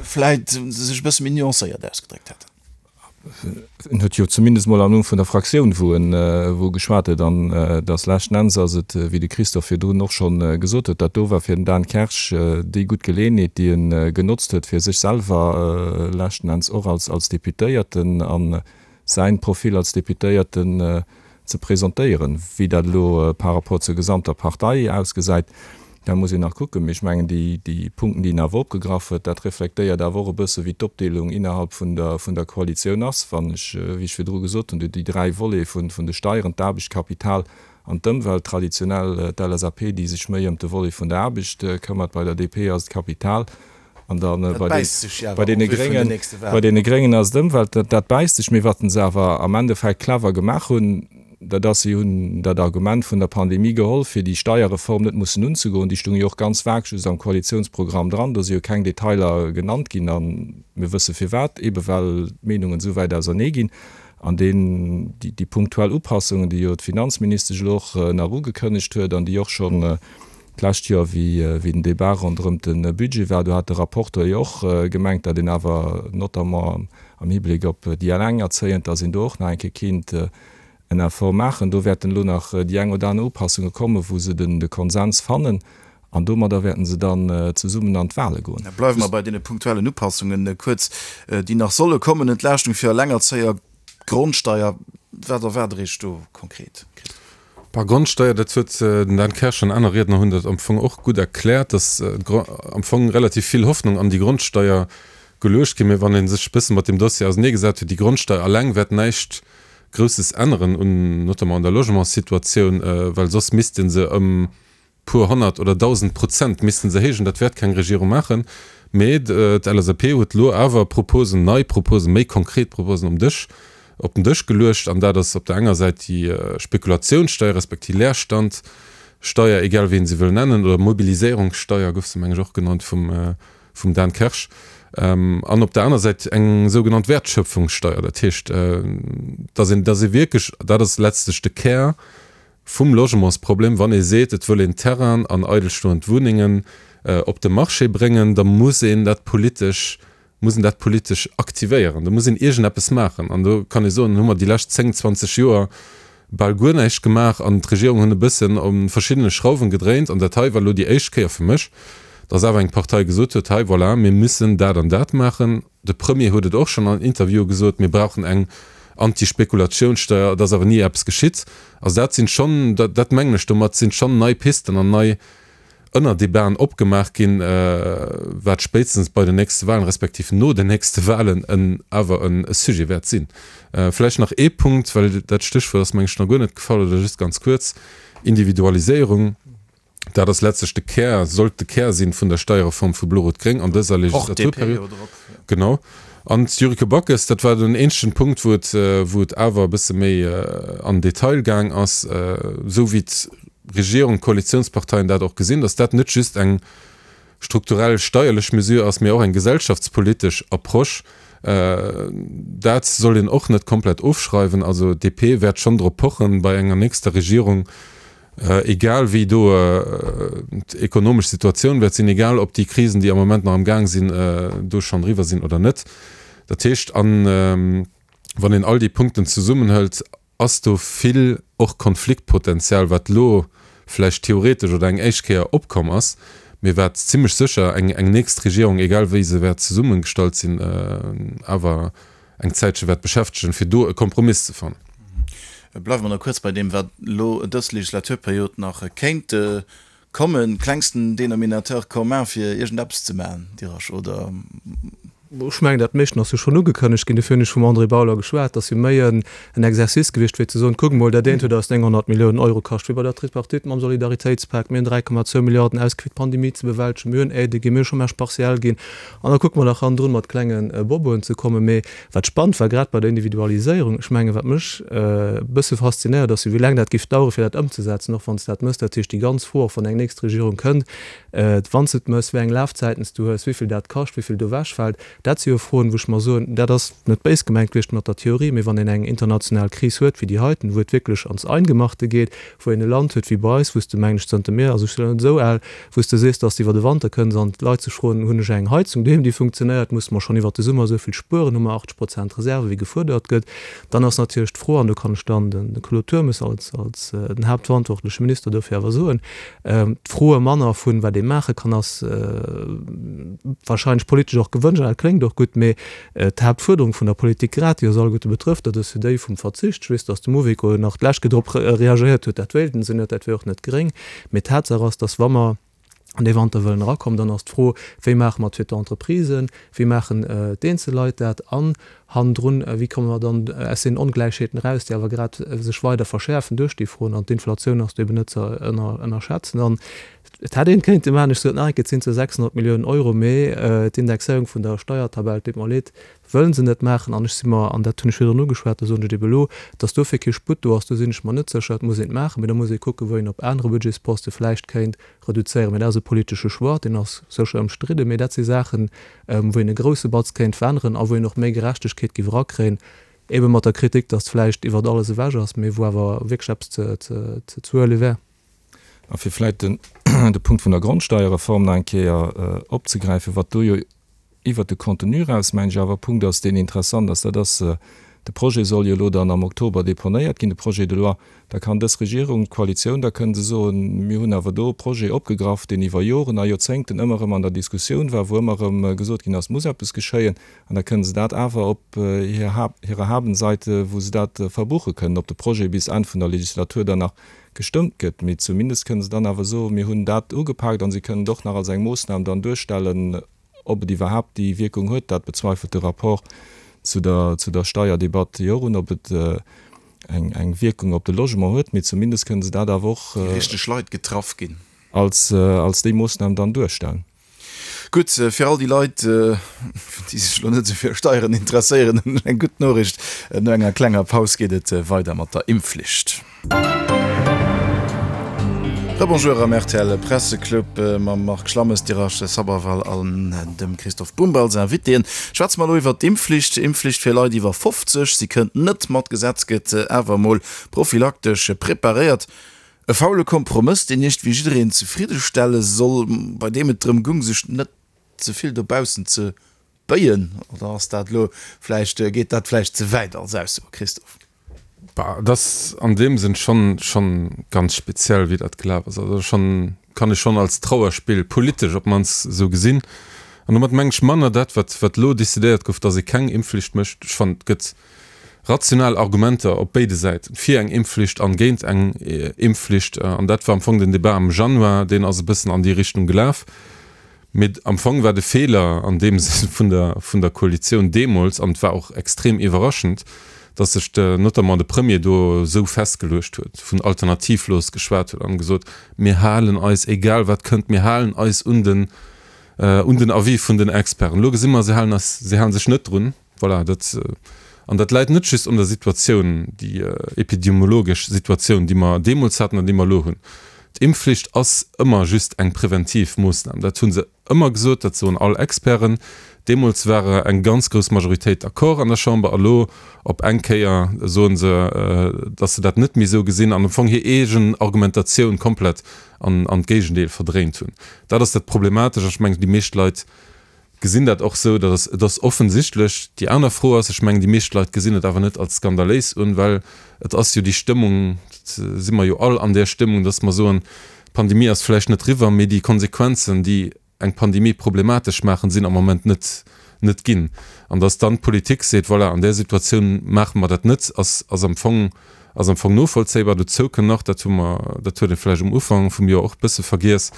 S3: vläit sech e bësse méi nuancéiert ausgedréckt hätten?
S4: En huet jo zumindest mol am Numm vun der Fraktioun, wou en wou e geschwat huet, an et ass leschten Enns ass et, wéi de Christophe virdrun och schonn gesot huet, dat do war fir den Dan Kersch déi gutt Geleeënheet, déi e genotzt huet, fir sech selwer leschten Enns och als als Deputéierten a säin Profil als Deputéierten ze presentéieren. Wéi dat elo par rapport zur gesamter Partei ausgesäit, dat muss een nach kucken. Mee ech mengen, déi, déi Punkten, déi en awer opgegraff huet, dat reflektéiert awer och e bësse wéi d'Opdeelung innerhalb vun der, vun der Koalitioun ass. Wann ech, wéi ech virdru gesot hunn, déi 3 Volete vun, vun de Steieren, d'Aarbecht, d'Kapital an d'Ëmwelt, traditionell d'LSAP, déi sech méi ëm de Volet vun der Aarbecht këmmert, bei der DP ass et d'Kapital, An dann bei deene Gréngen, bei deene Gréngen ass et Ëmwelt, dat bäisst sech. Mee wat se awer am Endeffekt clever gemaach hunn, dat ass, si hunn dat Argument vun der Pandemie geholl, fir déi Steierreform net mussen unzegoen. Déi stoung jo och ganz vag just am Koalitiounsprogramm dran, do si jo keng Detailer genannt ginn. A mir wësse firwat, eebe well d'Meenungen esou wäit ausernee ginn. An deen, déi punktuell Upassungen, déi jo d'Finanzministesch elo och nach ugekënnegt huet an déi och schonn D'lescht Joer, wéi den Débat ronderëm de Budget war, do hat de Rapporteur jo och gemengt, datt een awer notamment am Hibléck op déi Elengerzéiend, datt een do och nach eng Kéier kéint en Effort maachen. Do wäerten elo nach déi eng oder aner Upassunge kommen, wou se de Konsens fannen, an domadder wäerten se dann zesummen an d'Wahle goen.
S3: Bleiwe mer bei deene punktuellen Upassungen kuerz, déi nach solle kommen. Entlaaschtung fir Elengerzéier, Grondsteier, wat erwaart Der Iech do konkret,
S6: Christophe? Bah, Grondsteier, dat huet den Dan Kersch an aner Riedner hunn dat am Fong och gutt erkläert, dass am Fong relativ vill Hoffnung an déi Grondsteier geluecht ginn. Mä wann ee sech e bësse mat deem Dossier auseneegesat huet, déi Grondsteier alleng wäert näischt Grousses änneren un notamment an der Logementssituatioun, well soss misst ee se ëm puer 100 oder 1.000 Prozent missten se héijen. Dat wäert keng Regierung maachen. Mee d'LSAP huet elo awer Proposen, nei Proposen, méi konkret Proposen um Dësch, op den Dësch geluecht. An dat ass op der enger Säit déi Spekulatiounssteier respektiv Leerstandsteier, egal wéi een se wëll nennen, oder Mobiliséierungssteier gouf se, meng ech, och genannt vum, vum Dan Kersch. An op der aner Säit eng sougenannt Wertschöpfungssteier. Dat heescht, dass een, dass ee wierklech, dat ass letztlech de Kär vum Logementsproblem, wann ee seet, et wëll een Terrainen an eidelstoend Wunnengen op de Marché bréngen, da muss een dat politesch, muss een dat politesch aktivéieren, do muss een iergendeppes maachen. An do kann ee soen, hu mer déi lescht 10, 20 Joer bal guer näischt gemaach an d'Regierung hunn e bëssen u verschiddene Schrauwen gedréint. An dat hei war elo déi éischt Kéier fir mech, dass awer eng Partei gesot huet, hei, voilà, mir müssen dat an dat maachen. De Premier huet et och schonn an Interviewe gesot, mir brauchen eng Antispekulatiounssteuer, et ass awer ni eppes geschitt. Also dat sinn schonn, dat mengen ech domat, sinn schonn nei Pisten an nei Ënnerdebaten opgemaach ginn, wat spéitstens bei den nächste Wahlen, respektiv no den nächste Wahlen en awer e Sujet wäert sinn. Vläicht nach ee Punkt, well dat Stéchwuert ass, meng ech, nach guer net gefall oder just ganz kuerz, Individualiséierung. Dat ass letztlech de Kär, sollt de Kär sinn vun der Steierreform vu Blo-Rot-Gréng an dëser Legislaturperiod. Genau. An d'Yuriko Backes, dat war den eenzegen Punkt, wou et, wou et awer e bësse méi an den Detail gaang ass, esou wéi d'Regierung, d'Koalitionsparteien dat och gesinn, dass dat net just eng. strukturell steierlech Mesure ass, mee och eng gesellschaftspolitesch Approche. Dat soll een och net komplett ofschreiwen. Also d'DP wäert schonn drop pochen, bei enger nächster Regierung, egal wéi do d'ekonomesch Situatioun wäert sinn, egal ob déi Krisen, déi am Moment nach am Gaang sinn, do schonn eriwwer sinn oder net. Dat heescht, wann een all déi Punkten zesummenhëlt, ass do vill och Konfliktpotenzial, wat elo vläicht theoretesch oder eng éischt Kéier opkomm ass, mee wat zimlech sécher eng eng nächst Regierung, egal wéi se wäert zesummegestallt sinn, awer eng Zäitche wäert beschäftegen, fir do e Kompromiss ze fannen.
S3: Bleiwe mer nach kuerz bei deem, wat elo dës Legislaturperiod nach kéint Kommen, klengsten Dénominateur commun fir iergend eppes ze maachen, Dirasch, oder?
S5: Ech mengen, dat meeschten ass jo schonn ugekënnegt ginn. Dofir hunn ech vum André Bauler geschwat. Dat ass jo méi en Exercice gewiescht, wéi ze soen, kuckt mol, dat eent huet eis 900 Milliounen Euro kascht, wéi bei der Tripartite mam Solidaritéitspak. Mir hunn 3,2 Milliarden ausgi fir d'Pandemie ze bewältegen. Mir hunn Aidë ginn, mir hu Chômage partiel ginn. An da kucke mer nach hannendrun, mat klenge Boboen ze kommen. Mee Wat spannend war, grad bei der Individualiséierung, ech mengen, wat mech e bësse faszinéiert, ass jo, wéi laang dat géif dauere fir dat ëmzesetzen, och wann s de dat mëss. Dat heescht, déi ganz Fro, och wann eng nächst Regierung kënnt, wann s de et mëss, wéi eng Lafzäiten s du hues, wéi vill dat kascht, wéi vill do ewechfält, dat si jo Froen, wou ech mer soen, dat ass net béis gemengt gewiescht mat der Theorie, mee wann een eng international Kris huet wéi déi heiten, wou et wierklech ans Eingemachte geet, wou een e Land huet wéi bei eis, wou s de, mengen ech, zënter mir, also ech sinn net esou al, wou s de sees, dass de iwwer de Wanter kënns an d'Leit sech froen, hunn ech eng Heizung doheem, déi funktionéiert, musse mer schonn iwwer de Summer esou vill spueren, hu mer 80 Prozent Reserve wéi gefuerdert gëtt, dann ass natierlech d'Fro, an do kann ech dann de Claude Turmes als den haaptverantwortleche Minister dofir awer soen, d'Froe manner vun, wat ee maache kann, ass wahrscheinlech politesch och gewënscht an dat kléngt och gutt, mee D'Haaptfuerderung vun der Politik, grad déi eis alleguerte betrëfft, dat ass jo déi vum Verzicht. Ech weess, datt de Mouveco nach d'lescht Kéier drop reagéiert huet, dat wéilten se net, dat wier och net gréng. Mee Tatsaach ass, datt wa mer an dee Wanter wëllen erakommen, dann ass d'Fro, Wéi maache mer et fir d'Entreprisen, wéi maachen d'eenzel Leit dat an hannendrun, wéi komme mer dann aus deenen Ongläichheeten eraus, déi awer grad sech weider verschäerfen duerch déi Froen. An d'Inflatioun ass do eben net ze ënnerschätzen. An Et hätt een kéinte maachen, ech sot nach eng Kéier, et sinn zwar 600 Milliounen Euro, mee d'Indexéierung vun der Steiertabell, et deet mer leed, wëllen se net maachen. An ech si mer, an dat hunn ech virdrun ugeschwat, dat soen ech ebe elo, datt dofir kee Sputt do ass, do sinn ech mer net sécher. Et muss een et maachen, mee da muss ee kucken, wou een op anere Budgetsposte vläicht kéint reduzéieren. Mee dat ass e politesche Choix, deen ass sécher ëmstridden, mee dat si Saachen, wou een e grousse Batz kéint veränneren a wou een och méi Gerechtegkeet géif erakréien, ebe mat der Kritik, datt vläicht iwwert alles ewech ass, mee wou awer wierklech eppes ze huele wär.
S4: A fir vläit den de Punkt vun der Grondsteierreform nach eng Kéier opzegräifen, wat do jo iwwert de Contenu eraus, mengen ech, awer e Punkt ass, deen interessant ass, dat ass, de Projet soll jo elo dann am Oktober deponéiert ginn, de Projet de loi. Da kann dës Regierung, d'Koalitioun, da kënne se soen, mir hunn awer do e Projet opgegraff, deen iwwer Joren a Joerzéngten ëmmer erëm an der Diskussioun war, wou ëmmer erëm gesot ginn ass, muss eppes geschéien. An da kënne se dat awer op hirer Habenseite, wou se dat verbuche kënnen, ob de Projet bis Enn vun der Legislatur dann nach gestëmmt gëtt, mee zumindest kënne se dann awer soen, mir hunn dat ugepaakt, a se kënnen et och nach als eng Moossnam dann duerstellen. Ob et iwwerhaapt déi Wierkung huet, dat bezweifelt de Rapport zu der zu der Steierdebatt jo och un, ob et eng eng Wierkung op de Logement huet, mee zumindest kënne se dat awer och
S3: Déi richteg Leit getraff ginn.
S4: als als déi Moossnam dann duerstellen.
S3: Gutt, fir all déi Leit, déi sech elo net esou fir Steieren interesséieren, hunn ech eng gutt Noriicht, No enger klenger Paus geet et weider mat der Impfflicht. Rebonjour am rtl Presseclub mam Marc Schlammes, Dirache Sabharwal an dem Christophe Bumb als Invitéen. Schwätze mer elo iwwert d'Impfflicht. Impfflicht fir Leit iwwer 50, si kënnt net mat Gesetz, gëtt awer emol prophylaktesch preparéiert. E faule Kompromëss, deen iergendwéi jiddereen zefridde stelle soll, bei deem et drëm gung, sech net ze vill dobaussen ze béien. Oder ass dat elo vläicht, geet dat vläicht ze wäit als Ausso, Christophe?
S6: Bah, et ass an deem Sënn schonn, schonn ganz speziell, wéi dat gelaf ass. Also schonn, kann ech schonn als Trauerspill, politesch op d'mannst, esou gesinn. An domat mengen ech manner dat, wat, wat elo decidéiert gouf, datt ee keng Impfflicht mécht. Ech fannen, et gëtt rational Argumenter op béide Säiten, fir eng Impfflicht an géint eng Impfflicht. An dat war am Fong den Debat am Januar, deen ass e bëssen an déi Richtung gelaf. Mee am Fong war de Feeler an deem Sënn vun der, vun der Koalitioun deemools, an et war och extrem iwwerraschend, datt sech de, notamment de Premier do esou festgeluecht huet, vun alternativlos geschwat huet an gesot, mir halen eis, egal wat kënnt, mir halen eis un den, un den Avis vun den Experten. Elo gesi mer, se halen eis, se hale sech net drun. Voilà, dat, an dat läit net just un der Situatioun, déi epidemiologesch Situatioun, déi mer deemools haten an déi mer elo hunn. D'Impfflicht ass ëmmer just eng preventiv Moossnam. Dat hu se ëmmer gesot, dat soen all Experten. Deemools war eng ganz grouss Majoritéit d'accord an der Chamber. A lo op eng Kéier soe se, datt se dat net méi esou gesinn an am Fong hir eegen Argumentatioun komplett an d'Géigendeel verdréint hunn. Dat ass dat Problematesch. An ech mengen, déi meescht Leit gesinn dat och esou. Dat ass, et ass offensichtlech. Déi aner Fro ass, ech mengen, déi meescht Leit gesinn et awer net als skandaléis un, well et ass jo déi Stëmmung, dat si mer jo all an där Stëmmung, datt mer soen, d'Pandemie ass vläicht net riwwer, mee déi Konsequenzen, déi eng Pandemie problematesch maachen, sinn am Moment net, net ginn. An datt dann d'Politik seet, voilà, an där Situatioun maache mer dat net, ass, ass am Fong, ass am Fong novollzéibar. Dozou kënn nach, dat hu mer, dat huet ee vläicht um Ufank vum Joer och e bësse vergiess,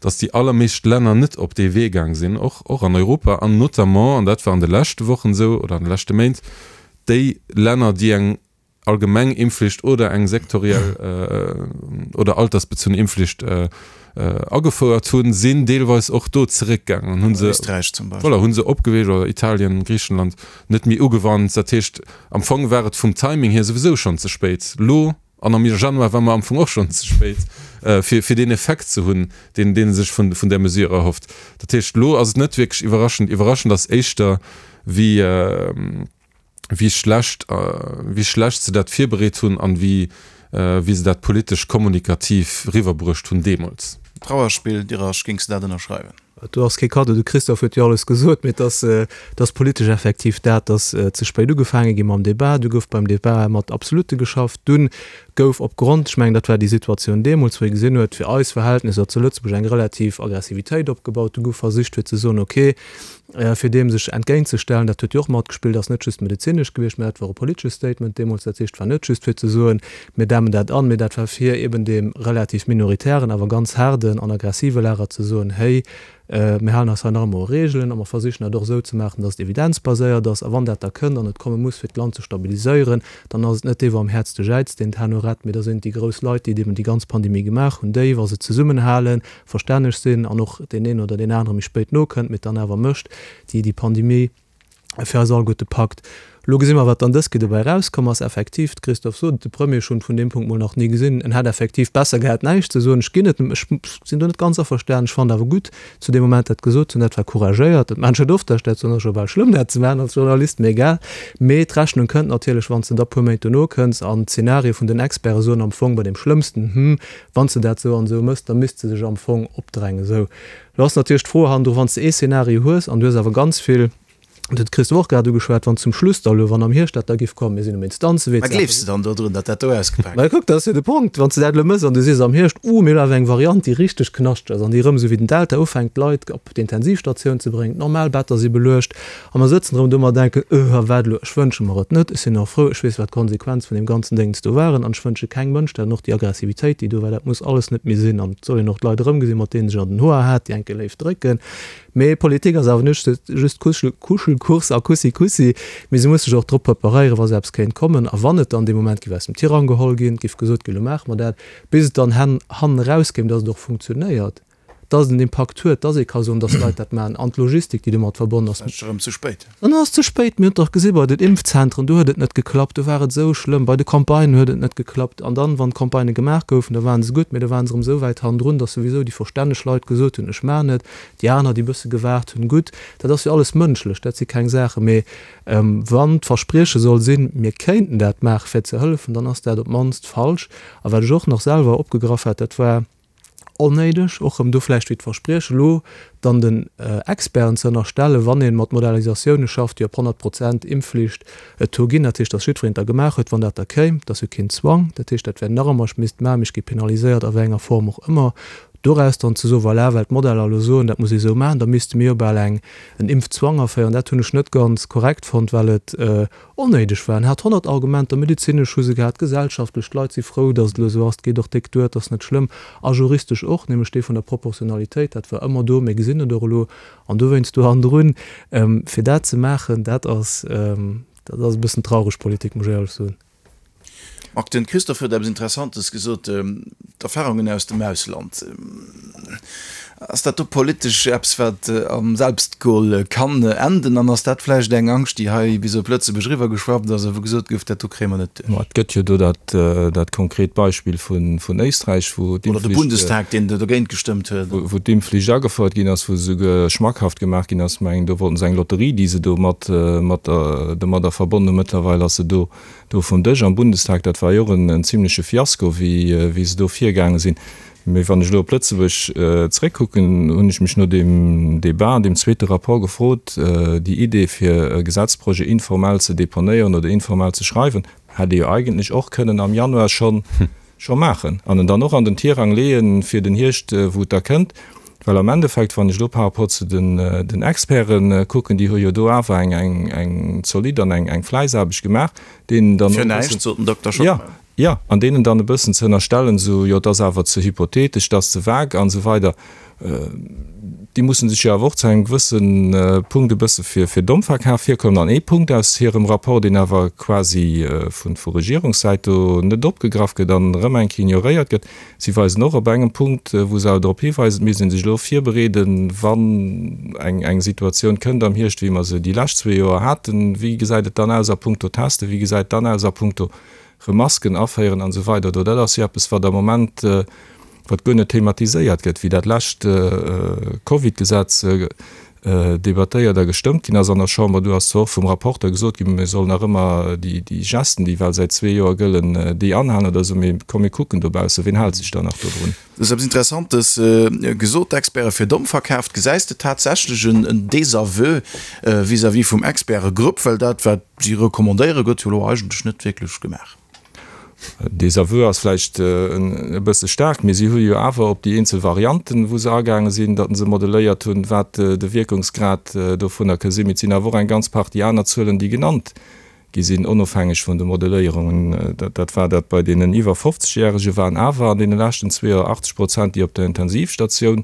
S6: datt déi allermeescht Länner net op dee Wee gaang sinn, och, och an Europa, an notamment, an dat war an de leschte Wochen esou oder an de leschte Méint, déi Länner, déi eng allgemeng Impfflicht oder eng sektoriell oder altersbezunn Impfflicht agefouert hunn, sinn deelweis och do zeréckgaangen an hu se,
S3: Österreich zum Beispill.
S6: voilà, hu se opgeweecht, oder Italien, Griichenland, net méi ugewannt. Dat heescht, am Fong war et vum Timing hier souwisou schonn ze spéit elo. An am Januar war mer am Fong och schonn ze spéit, fir, fir deen Effekt ze hunn, deen, deen ee sech vun, vun där Mesure erhofft. Dat heescht, elo ass et net wierklech iwwerraschend. Iwwerraschend ass éischter, wéi, wéi schlecht, wéi schlecht se dat virbereet hunn an wéi, wéi se dat politesch kommunikativ riwwerbruecht hunn deemools.
S3: Trauerspill, Dirasch, géings de dat ënnerschreiwen?
S5: Do ass kee Kaddo, de Christophe huet jo alles gesot, mee et ass, et ass politesch effektiv dat, datt ze spéit ugefaange gi mam Débat. Du gouf beim Débat mat Absolute geschafft. Dunn gouf opgrond, ech mengen dat war déi Situatioun deemools, wou ee gesinn huet, fir eis Verhältnisser zu Lëtzebuerg eng relativ Aggressivitéit opgebaut. Du gouf versicht fir ze soen, okay, fir deem sech entgéintzestellen, dat huet jo och matgespillt, ass net just medezinesch gewiescht, mä dat war e politesche Statement deemools. Dat heescht, et war net just fir ze soen, mir dämmen dat an, mä dat war fir eben deem relativ minoritären, awer ganz haarden an aggressive Lager ze soen, héi, mir halen eis hei nach emol u Regeln a mer versichen dat och esou ze maachen, dass et evidenzbaséiert ass. A wann dat da kënnt an et komme muss, fir d'Land ze stabiliséieren, dann ass et net dee wou am häertste jäizt, deen d'Hänn urett, mä da sinn et déi grouss Leit, déi eben déi ganz Pandemie gemaach hunn, déi, wa se zesummenhalen, verstänneg sinn an och deen een oder deen anere méi spéit nokënnt, mee et dann awer mécht, déi déi Pandemie fir eis alleguerte packt. Elo gesi mer, wat dann dës Kéier dobäi erauskomm ass. Effektiv, de Christophe sot et, de Premier, ech hunn vun deem Punkt mol nach ni gesinn, en hätt effektiv besser gehat näischt ze soen. Ech ginn et em, ech sinn do net ganz averstanen. Ech fannen awer gutt, zu deem Moment dat gesot ze hunn, dat war couragéiert. Dat maachen ech net oft, dat ech dat soen, ass scho bal schlëmm dat ze maachen als Journalist, mee egal. Mee d'Rechnung kënnt natierlech, wann s de da puer Méint dono kënns an d'Zenarie vun den Experte soen am Fong bei deem schlëmmsten, hm, Wann s de dat esou an esou mëss, da misst se sech am Fong opdrängen. Esou, lo ass natierlech d'Fro hannendru, wann s de ee Szenario hues an du hues awer ganz vill, dat huet d'Christo och grad ugeschwat, wann zum Schluss da elo, wann am Hierscht dat da giff kommen, mir sinn um Instanzewee,
S3: Mä gleefs de dann dodrun, datt dat do ausgepak
S5: Mä kuck, dat ass jo de Punkt, wann s de dat elo mëss an du sees am Hierscht, Uh, mir hunn awer eng Variant, déi richteg knaschteg ass an déi erëm esou wéi den Delta ufänkt d'Leit op d'Intensivstatioun ze bréngen, d'normal Better si beluecht, A mer sëtzen erëm do mer denken, Öh, a wat elo? Ech wënsche mer et net. Ech sinn och frou, ech weess, wat d'Konsequenz vun deem ganzen Déngens do waren. An ech wënsche kengem Mënsch dat an och déi Aggressivitéit, déi do war, dat muss alles net méi sinn. An et soll een och d'Leit erëmgesinn, mat deenen sech an den Hoer hat, déi enke léif drécken. Mee Politik ass awer net just Kuschelkurs a Kussi-Kussi, mee se muss sech och drop preparéieren, wa sou eppes kéint kommen. A wann et dann dee Moment géif aus dem Tirang geholl ginn, géif gesot ginn, elo maache mer dat, bis et dann hannen erauskéim, datt et och funktionéiert. dass et en Impakt huet, dass ee ka soen, dass d'Leit dat maachen, an d'Logistik, déi domat verbonnen ass.
S3: Dann ass et erëm ze spéit.
S5: Dann ass et ze spéit. Mir hunn et dach gesi bei den Impfzentren, do huet et net geklappt, do war et esou schlëmm. Bei de Campagnen huet et net geklappt. An dann, wann d'Campagnë gemaach goufen, da ware se gutt, mee da ware se erëm esou wäit hannendrun, dass souwisou déi verstänneg Leit gesot hunn, ech maachen et, déi aner, déi e bësse gewaart hunn, gutt. Dat ass jo alles mënschlech, dat si keng Saachen. Mee wann d'Versprieche soll sinn, mir kéinten dat maache fir ze hëllefen, dann ass dat op d'mannst falsch. A wat ech och nach selwer opgegraff hat, dat war, Onnéideg, och erëm do vläicht wéi d'Versprieche elo dann den Experten ze ënnerstellen, wann ee mat Modellisatioune schafft, déi op 100 Prozent Impfflicht et do ginn, dat heescht, datt jiddwereen et da gemaach huet, wann dat da kéim, dat ass jo keen Zwang, dat heescht, dat wär nach ëmmer, ech misst et maachen, mee ech gi penaliséiert a wéi enger Form och ëmmer, doraus dann ze soen, voilà, well d'Modeller elo soen, dat muss ee sou maachen, da misste mir jo bal eng en Impfzwang aféieren, dat hunn ech net ganz korrekt fonnt, well et Onnéideg war. En hat 100 Argumenter, medezinesch hu se gehat, gesellschaftlech, d'Leit si frou, datt et elo esou ass, et geet och déck duer, et ass net schlëmm, a juristesch och, nämlech dee vun der Proportionalitéit, dat war ëmmer do, mir gesinn et och elo. An dowéinst do hannendrun, fir dat ze maachen, dat ass, dat ass e bëssen traureg Politik, muss ech éierlech soen.
S3: Marc, den Christophe huet eppes Interessantes gesot, d'Erfahrungen aus dem Ausland. Ass dat do politesch eppes, wat am Selbstgol kann enden? An ass dat vläicht eng Angscht, déi hei bis op Lëtzebuerg eriwwergeschwappt ass a wou gesot gouf, dat do kréie mer net duerch?
S4: Ma et gëtt jo do dat konkret Beispill vun Éisträich, wou
S3: Oder de
S4: d'Impfflicht,
S3: Bundestag, deen dogéint gestëmmt huet.
S4: wou d'Impfflicht agefouert ginn ass, wou se souguer schmackhaft gemaach ginn ass, mengen do wollten se eng Lotterie, déi se do mat domadder verbonnen hunn. Mëttlerweil ass se do vum Dësch am Bundestag. Dat war jo och en zimleche Fiasko, wéi se do virgaange sinn. Mee wann ech elo op Lëtzebuerg zréckkucken, hunn ech mech no deem Débat an deem zweete Rapport gefrot, déi Idee fir e Gesetzprojet informell ze deponéieren oder informell ze schreiwen, hätt ee jo eigentlech och kënnen am Januar scho scho maachen an en dann och an den Tirang leeën fir den Hierscht, wou et da kënnt. Well am Endeffekt, wann ech elo par rapport zu den den Experte kucken, déi hu jo do awer eng eng eng zolidd an eng eng Fläissaarbecht gemaach, deenen dann
S3: Fir näischt, sot den Dokter Schockmel.
S4: Jo, an deenen dann e bëssen ze ënnerstellen, esou, jo, et ass awer ze hypothetesch, et ass ze vague an esou weider, déi mussen sech jo awer och zu engem gewësse Punkt e bësse fir fir domm verkaf virkommen. An ee Punkt aus hirem Rapport, deen awer quasi vu vu Regierungssäit do net opgegraff gëtt an erëm eng Kéier ignoréiert gëtt, si weisen och op engem Punkt, wou se awer drop hiweisen, et misst ee sech elo virbereeden, wann eng eng Situatioun kënnt am Hierscht, wéi mer se déi lescht zwee Joer haten, wéi gesäit et dann aus a puncto Testen, wéi gesäit et dann aus a puncto rëm Masken aféieren an esou weider do. Dat ass jo eppes, wat am Moment, wat guer net thematiséiert gëtt, wéi dat lescht Covid-Gesetz debattéiert a gestëmmt ginn ass an der Chamber. Do ass zwar och vum Rapporteur gesot ginn, mir sollen nach ëmmer déi Gesten, déi well säit zwee Joer gëllen, déi anhalen oder esou, mee komm mir kucken dobaussen, wien hält sech dann nach dodrun?
S3: Du hues eppes Interessantes gesot, d'Experte fir domm verkaaft. Gesäis de tatsächlech en Désaveu vis-à-vis vum Expertegrupp? Well dat, wat si recommandéieren, gëtt jo elo eigentlech net wierklech gemaach.
S4: Désaveu ass vläicht e bësse staark, mee si hu jo awer op déi eenzel Varianten, wou se agaange sinn, datt se modelléiert hunn, wat de Wierkungsgrad dovunner ka sinn. Mee et sinn awer och eng ganz Partie aner Zuelen, déi genannt gi sinn, onofhängeg vun de Modelléierungen. Dat war dat bei deenen iwwer 50 Järege waren awer an deene leschten zwee Joer 80 Prozent, déi op der Intensivstatioun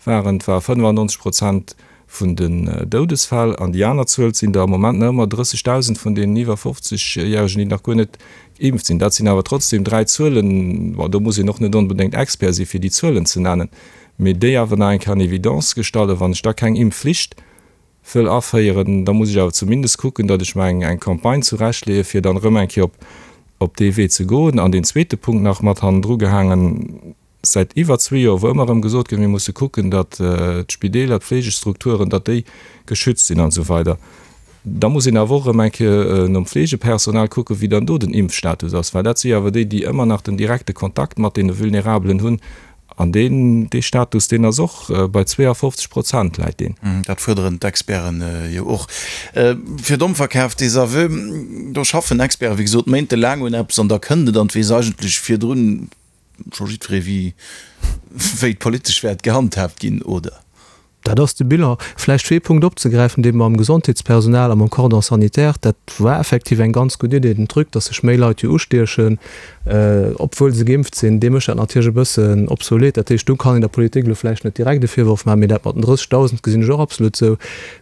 S4: waren. Et war 95 Prozent vun den Doudesfäll. An déi aner Zuel sinn der am Moment nach ëmmer 30.000 vun deenen iwwer 50 Järegen, déi nach guer net geimpft sinn. Dat sinn awer trotzdem dräi Zuelen, bon, do muss een och net onbedéngt Expert si fir déi Zuelen ze nennen, mee déi awer nach eng Kéier an Evidence gestallen, wann ech da keng Impfflicht wëll aféieren, da muss ech awer zumindest kucken, datt ech mer eng eng Campagne zurechtleeë fir dann erëm eng Kéier op op dee Wee ze goen. An deen zweete Punkt nach mat hannendru gehaangen, säit iwwer zwee Joer, wou ëmmer erëm gesot gëtt, mir musse kucken, datt d'Spideeler, d'Fleegestrukturen, datt déi geschützt sinn an esou weider, da muss een awer och erëm eng Kéier nom Fleegepersonal kucken, wéi dann do den Impfstatus ass, well dat si awer déi, déi ëmmer nach den direkte Kontakt mat deene Vulnerabelen hunn. An deen, dee Status, deen ass och bei 52 Prozent läit deen.
S3: Dat fuerderen d'Experten jo och. Fir domm verkaf, Désaveu, do schaffen Experten, wéi gesot, méintelaang un eppes an da kënnt et an et weess eigentlech virdrun scho jiddweree wéi wéi et politesch wäert gehandhaabt ginn, oder?
S5: Dat ass de Bilan. Vläicht fir ee Punkt opzegräifen, dee mam Gesondheetspersonal a mam Cordon sanitaire, dat war effektiv eng ganz gutt Idee, den Truc, datt sech méi Leit jo ustiechen, obwuel se geimpft sinn, dee mécht dat natierlech e bëssen obsolet. Dat heescht, do kann een der Politik elo vläicht net direkt e Virworf maachen, mee dat mat den 30.000 gesinn ech och absolut esou.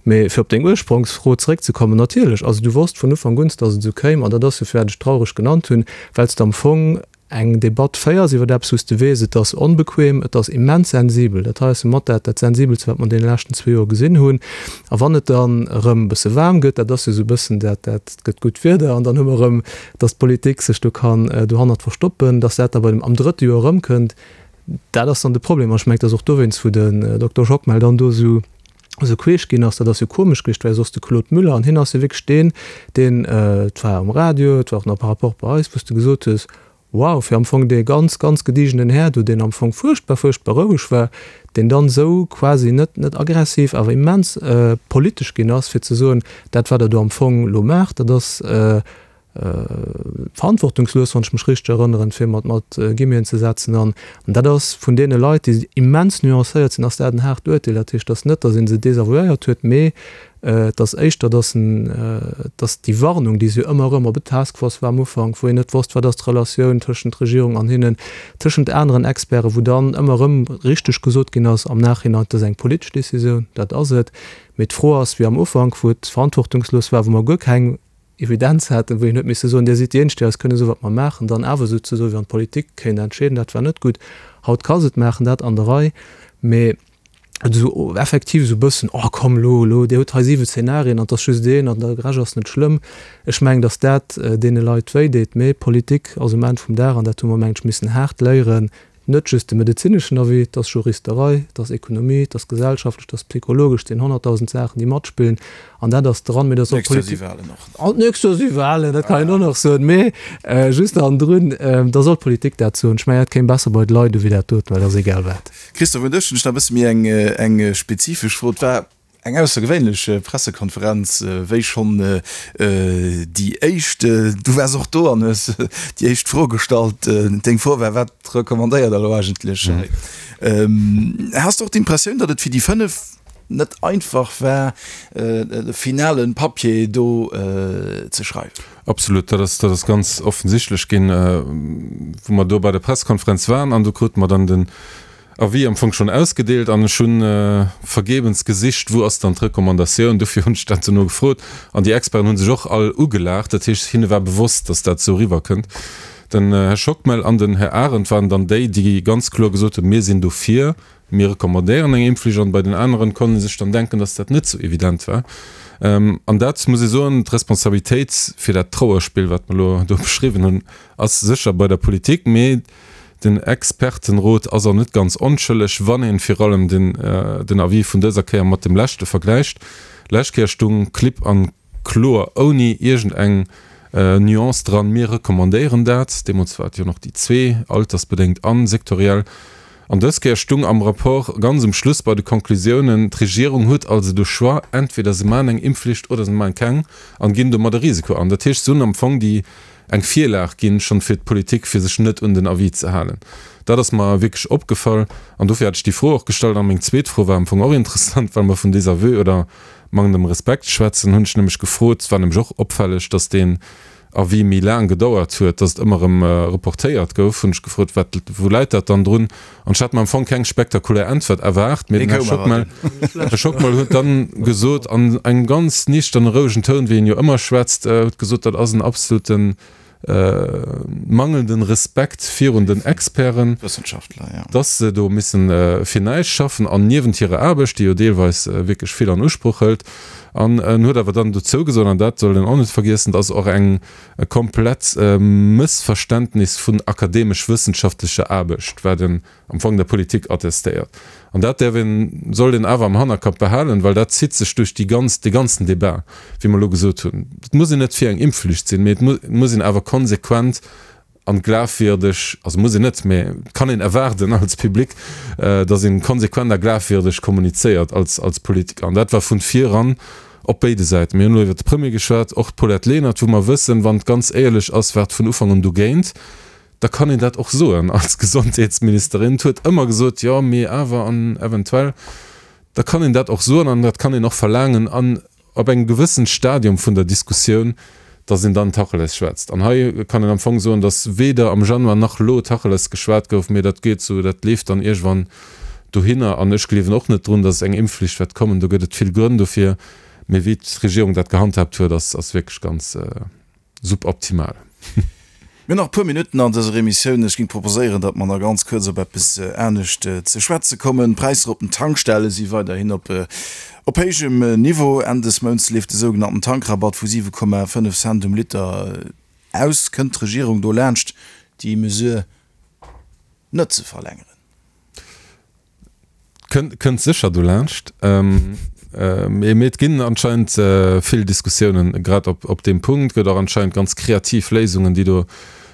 S5: Mee fir op deng Ursprongsfro zeréckzekommen, natierlech, also du wosst vun Ufank un, datt et esou kéim, an dat ass jo firwat ech traureg genannt hunn, well s de am Fong eng Debatt féiers iwwer eppes, wou s de weess, et ass onbequem, et ass immens sensibel, dat hei ass jo mat dat dat Sensibelste, wat mer an deene leschten zwee Joer gesinn hunn, a wann et dann erëm e bësse waarm gëtt, dat ass jo esou e bëssen dat, dat et gëtt gutt Wieder an dann hu mer erëm, datt d'Politik sech do kann dohannert verstoppen, datt dat da bei dem am drëtte Joer erëmkënnt, dat ass dann de Problem. An ech mengen, et ass och dowéinst, wou den Dokter Schockmel dann do esou esou queesch ginn ass, dat ass jo komesch gewiescht, well soss de Claude Müller, an hien ass jo wierklech deen, deen, et war um Radio, et war och nach par rapport bei eis, wou s de gesot hues, wow, fir am Fong dee ganz, ganz gediegenen Här do, deen am Fong fuerchtbar, fuerchtbar roueg war, deen dann esou quasi net, net aggressiv, awer immens politesch ginn ass, fir ze soen, dat wat Der do am Fong elo maacht, dat ass, verantwortungslos, wann ech mech richteg erënneren, fir mat mat Guillemeten ze setzen. An dat ass vun deene Leit, déi immens nuancéiert sinn, ass dat en haart Uerteel. Dat heescht, et ass net, datt ee se desavouéiert huet, mee et ass éischter, datt en, datt déi Warnung, déi se jo ëmmer erëm, ob et d'Task Force war am Ufank, wou een net wosst, wat ass d'Relatioun tëschent Regierung an hinnen, tëschent aneren Experten, wou dann ëmmer erëm richteg gesot ginn ass am Nachhinein, dat ass eng politesch Décisioun, dat ass et. Mee d'Fro ass, wéi am Ufank, wou et verantwortungslos war, wou mer guer keng Evidenz haten, wou een huet misse soen, Dir sidd déi Eenzeg, déi eis kënne soen, wat mer maachen, dann awer esou ze soen, wéi wann d'Politik kéint entscheeden, dat war net gutt. Haut ka se et maachen, dat an der Rei. Mee. Esou effektiv esou e bëssen, oh komm elo, elo, Dir hutt hei siwe Szenarien an et ass just een an de Rescht ass net schlëmm. Ech mengen, datt dat deene Leit wéi deet. Mee Politik ass um Enn vum Dag, an dat hu mer, mengen ech, missen haart léieren, net just de medezineschen Avis, et ass Juristerei, et ass Ekonomie, et ass gesellschaftlech, et ass psychologesch, et sinn 100.000 Saachen, déi matspillen an dat ass dran. Mee dat ass och
S3: Politik. D'nächst Joer si Walen och.
S5: An d'nächst Joer si Walen, dat kann een och nach soen. Mee just hannendrun, da soll d'Politik dat soen. Ech mengen, dat kéim besser bei d'Leit u wéi dat doten, well et ass egal wat.
S3: Christophe, un dech hunn ech nach e bësse méi eng eng spezifesch Fro. Et war eng aussergewéinlech Pressekonferenz, wéi schonn déi éischt. Du waars och do an hues déi éischt Fro gestallt. Deng Fro war, Wat recommandéiert Der elo eigentlech hei? Has de och d'Impressioun, datt et fir déi 5 net einfach war, de finale Papier do ze schreiwen?
S6: Absolut, dat ass, dat ass ganz offensichtlech ginn, wou mer do bei der Pressekonferenz waren an do krute mer dann den Avis am Fong schonn ausgedeelt an ech hu vergebens gesicht, wou ass dann d'Recommandatioun. Dofir hunn ech dat dono gefrot an déi Experten hu sech och all ugelaacht. Dat heescht, hinne war bewosst, datt dat esou eriwwerkënnt. Den Här Schockmel an den Här Arendt waren dann déi, déi ganz kloer gesot hunn, Mir sinn dofir. Mir recommandéieren eng Impfflicht an bei den aneren konnt ee sech dann denken, dass dat net sou evident war. An dat muss ee soen, d'Responsabilitéit fir dat Trauerspill, wat mer elo do beschriwwen hunn, ass sécher bei der Politik, mee den Expertenrot ass och net ganz onschëlleg, wann ee vir allem den Avis vun dëser Kéier mat dem leschte vergläicht. Lescht Kéier stung klipp an kloer, ouni iergend eng Nuance dran, Mir recommandéieren dat. Deemools war et jo nach déi zwee, altersbedéngt an sektoriell. An dës Kéier stung am Rapport ganz um Schluss bei de Konklusiounen, D'Regierung huet also de Choix, entweder se maachen eng Impfflicht oder se maachen keng an ginn domat e Risiko an. Dat heescht, se hunn am Fong déi eng Virlag ginn, schonn fir d'Politik, fir sech net un den Avis ze halen. Dat ass mer wierklech opgefall an dofir hat ech déi Fro och gestallt. A meng zweet Fro war am Fong och interessant, well mer vun Désaveu oder mangelndem Respekt schwätzen, hunn ech nämlech gefrot, et war nämlech och opfälleg, dass deen Avis méi laang gedauert huet, dass et ëmmer erëm reportéiert gouf, hunn ech gefrot, wat, wou läit dat dann drun? An ech hat mer am Fong keng spektakulär Äntwert erwaart, mee den Här Schockmel, Här Schockmel huet dann gesot, an engem ganz niichterne, rouegen Toun, wéi en jo ëmmer schwätzt, huet gesot, dat ass en absoluten mangelnden Respekt virun den Experten, dass se do missen fir näischt schaffen an niewent hirer Aarbecht, déi jo deelweis wierklech vill an Usproch hëlt. An en huet awer dann dozou gesot, an dat soll een och net vergiessen, dass och eng e komplett Mëssverständnis vun akademesch-wëssenschaftlecher Aarbecht, wat en am Fong der Politik attestéiert. An dat däerf een, sollt een awer am Hannerkapp behalen, well dat zitt sech duerch déi ganz, dee ganzen Débat, wéi mer elo gesot hunn. Et muss een net fir eng Impfflicht sinn, mee et muss een awer konsequent an glafwierdeg, also muss een net, mee et kann een erwaarden als Public, datt een konsequent a glafwierdeg kommunizéiert als, als Politiker. An dat war vun viran op béide Säiten. Mir hunn elo iwwert de Premier geschwat, och d'Paulette Lenert, wou mer wëssen, wann et ganz éierlech ass, war et vun Ufank un dogéint. Da kann een dat och soen als Gesondheetsministerin. Et huet ëmmer gesot, jo, mee awer an eventuell. Da kann een dat och soen an dat kann een och verlaangen an op engem gewëssen Stadium vun der Diskussioun, dass een dann Tacheles schwätzt. An hei kann een am Fong soen, dass weder am Januar nach elo Tacheles geschwat gouf, mee dat geet esou, dat leeft dann iergendwann dohinner. An ech gleewen och net drun, dass eng Impfflicht wäert kommen. Do gëtt et vill Grënn dofir. Mee wéi d'Regierung dat gehandhaabt huet, ass wierklech ganz. Suboptimal.
S3: Mir hunn nach e puer Minutten an dëser Emissioun. Ech géing proposéieren, datt mer nach ganz kuerz op eppes anescht ze schwätze kommen. D'Präisser op den Tankstelle si weiderhin op op héijem Niveau. Enn des Mounts leeft de sougenannten Tankrabatt vu 7,5 Cent um Liter aus. Kënnt d'Regierung do laanscht, déi Mesure net ze verlängeren?
S6: Kënnt sécher dolaanscht. Mee et ginn anscheinend vill Diskussiounen grad op deem Punkt. Et gëtt och anscheinend ganz kreativ Léisungen, déi do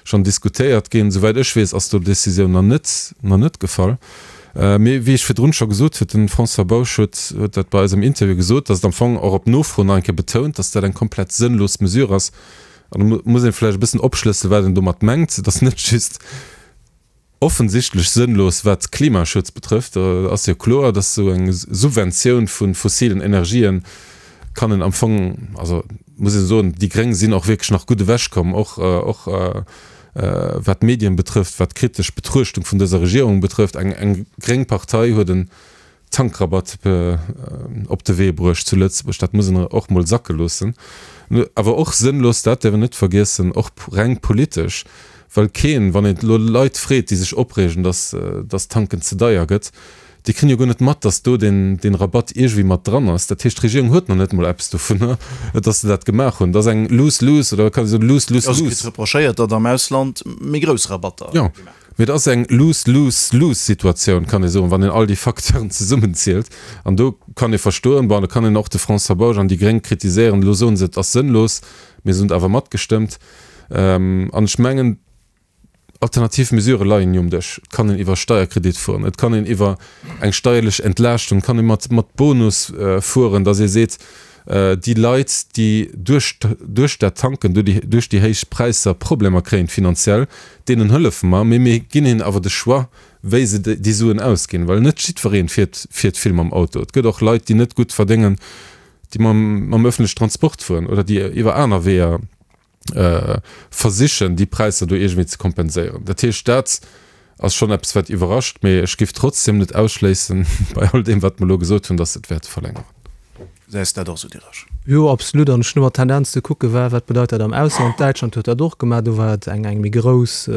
S6: schonn diskutéiert ginn. Souwäit ech weess, ass do d'Decisioun nach net, nach net gefall. Mee wéi ech virdrun scho gesot huet, de François Bausch huet huet dat bei eis am Interview gesot, datt et am Fong och op Nofro nach eng Kéier betount, datt dat eng komplett sënnlos Mesure ass. An do muss ee vläicht e bëssen opschlësselen, wat en domat mengt. Et ass net just Offensichtlech sënnlos wat Klimaschutz betrëfft. Do ass jo kloer, dass esou eng Subventioun vu fossilen Energien kann een am Fong, also muss een soen, déi Gréng sinn och wierklech nach gutt ewechkomm, och och wat d'Medien betrëfft, wat d'kritesch Betruechtung vun dëser Regierung betrëfft. Eng eng gréng Partei huet en Tankrabatt op de Wee bruecht zu Lëtzebuerg. Dat muss een och mol sacke loossen. Awer och sënnlos, dat däerf een net vergiessen, och reng politesch, well keen, wann een elo Leit freet, déi sech opreegen, datt datt Tanken ze deier gëtt, Déi kréien jo guer net mat, datt do deen, deen Rabatt iergendwéi mat dran ass. Dat heescht, d'Regierung huet nach net emol eppes dovunner, datt se dat gemaach hunn. Dat ass eng lose-lose oder kann ee soen
S3: lose-lose-lose. Also kritt reprochéiert, datt am Ausland méi grouss Rabatter
S6: gemaach ginn. Jo, mee et ass eng lose-lose-lose-Situatioun, kann ee soen, wann een all déi Facteuren zesummenzielt. An do kann ee verstoen, bon, do kann een och de François Bausch an déi Gréng kritiséieren, elo soen se, et ass sënnlos, mee se hunn et awer matgestëmmt. An ech mengen, Alternativ Mesurë leien jo um Dësch. Et kann een iwwer Steierkredit fueren, et kann een iwwer eng steierlech Entlaaschtung, et kann ee mat mat Bonus fueren, datt ee seet, déi Leit, déi duerch duerch dat Tanken, duerch déi héich Präisser Problemer kréien finanziell, deenen hëllefe mer, mee mir ginn hinnen awer de Choix, wéi se déi Suen ausginn, well net jiddweree fiert fiert vill mam Auto. Et gëtt och Leit, déi net gutt verdéngen, déi mam mam öffentlechen Transport fueren oder déi iwwer aner Weeër versichen, déi Präisser do iergendwéi ze kompenséieren. Dat heescht, dat ass schonn eppes, wat iwwerrascht, mee ech géif trotzdem net ausschléissen, bei all deem, wat mer elo gesot hunn, dass se et wäerte verlängeren.
S3: Gesäis de dat och esou, Diderich?
S5: Jo, absolut. An ech hunn ëmmer d'Tendenz ze kucken, wat bedeit dat am Ausland. Däitschland huet dat och gemaach. Do war et eng méi grouss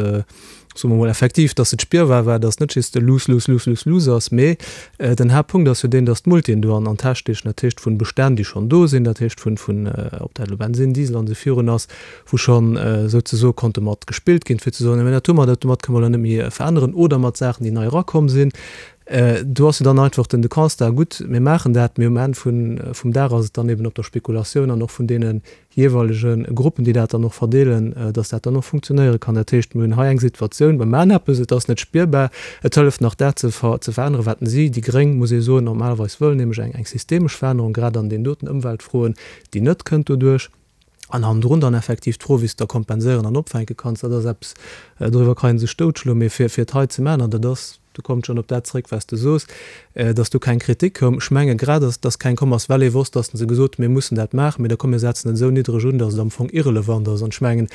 S5: soe mer mol effektiv, dass et spierbar war, dass net just e lose, lose, lose, lose, lose ass, mee den Haaptpunkt ass jo deen, dass d'Multien do an an d'Täsch steechen, dat heescht vun Bestänn, déi schonn do sinn, dat heescht vun, vun, ob dat elo Bensinn, Diesel an esou virun ass, wou schonn souzesoe konnte mat gespillt ginn, fir ze soen, mä dat hu mer, dat domat kënne mer elo net méi veränneren, oder mat Saachen, déi nei erakomm sinn. Do ass jo dann einfach den de Constat, gutt, mir maachen dat, mee um Enn vun, vum Dag ass et dann eben op der Spekulatioun an och vun deene jeeweilege Gruppen, déi dat dann och verdeelen, dass dat dann och funktionéiere kann. Dat heescht, mir hunn hei eng Situatioun, mir maachen eppes, et ass net spierbar, et hëlleft nach dat ze veränneren, wat si, déi Gréng, muss ee soen, normalerweis wëllen, nämlech eng eng systemesch Verännerung, grad an deenen doten Ëmweltfroen, déi net kënnt doduerch. An hannendrun dann effektiv d'Fro, wéi s de da kompenséieren an opfänke kanns, dat ass eppes, doriwwer kann ee sech doutschloen, mee fir et hei ze maachen, an dat ass, Do kommt schonn op dat zréck, wat s de sos, dass do keng Kritik koum. Ech menge grad, dass dass keng komm ass, well ee wosst, dass se gesot hunn, mir mussen dat maachen, mee da komm mir setzen et esou niddreg un, dass et am Fong irrelevant ass. An ech mengen,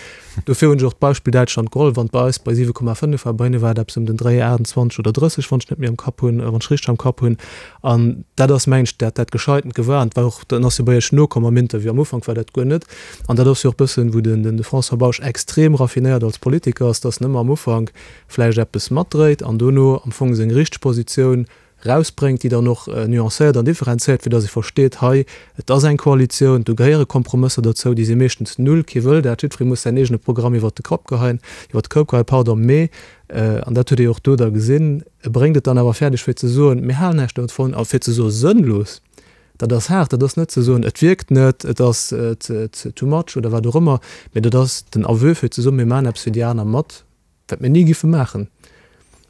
S5: dofir hunn ech och d'Beispill Däitschland geholl. Wann et bei eis bei 7,5 war, bei hinne war et eppes ëm den Dréi 28 oder 30, wann ech net méi am Kapp hunn, wann ech richteg am Kapp hunn. An dat ass, mengen ech, dat dat Gescheitent gewar. An et war och, dann ass jo bei Iech nokomm am Interview, am Ufank war dat guer net. An dat ass jo och e bëssen, wou den de François Bausch extrem raffinéiert als Politiker ass, dass en ëmmer am Ufank vläicht eppes matdréit an dono am Fong seng richteg Positioun rausbréngt, déi dann och nuancéiert an differenzéiert, fir datt ee versteet, hei, et ass eng Koalitioun, do gehéiere Kompromësser derzou, déi si meeschtens null, kee wëll dat, jiddweree muss säin eegene Programm iwwert de Kapp geheien, iwwert de Koup geheien, pardon, mee, an dat huet ee jo och do da gesinn, e bréngt et dann awer fäerdeg fir ze soen, mir halen näischt dovun, a fir ze soe sënnlos, dat ass haart, dat ass net ze soen, et wierkt net, et ass too much oder wat och ëmmer, mee dat ass den Aveu fir ze soen, mir maachen eppes fir déi aner mat. Wat mir ni giffe maachen.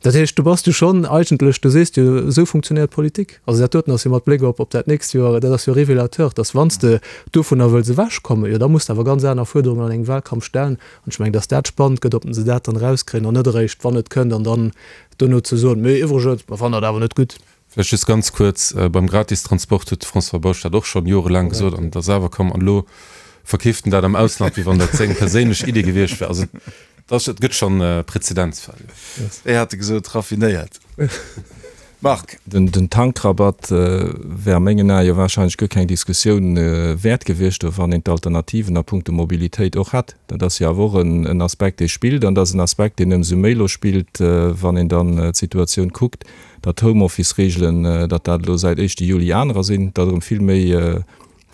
S5: Dat heescht, do bass du schonn eigentlech, du sees jo, esou funktionéiert Politik. Also dat doten ass jo mat Bléck op op dat nächst Joer, dat ass jo révélateur, dass wann s de dovunner wëlls ewechkommen, jo da muss de awer ganz aner Fuerderungen an engem Wahlkampf stellen. An ech mengen, dass dat spannend gëtt, ob se dat dann erauskréien an net eréischt, wann et kënnt, an dann dono ze soen, mee iwwregens, mer fannen dat awer net gutt.
S6: Vläicht just ganz kuerz, Beim Gratistransport huet de François Bausch dat och schonn jorelaang gesot an et ass awer komm. An elo verkeeft en dat am Ausland, wéi wann dat seng perséinlech Idee gewiescht wär. Also et gëtt schonn Prezedenzfäll.
S3: Wéi hat e gesot? Raffinéiert. Marc.
S4: Den Tankrabatt wär a mengen Ae jo warscheinlech guer keng Diskussioun wäert gewiescht, wann een d'Alternativen a puncto Mobilitéit och hätt. Dat ass jo awer och en Aspekt, dee spillt. An dat ass en Aspekt, deen ëmsou méi elo spillt, wann een dann d'Situatioun kuckt, datt d'Homeoffice-Reegelen, datt dat elo säit éischte Juli anerer sinn, datt erëm vill méi,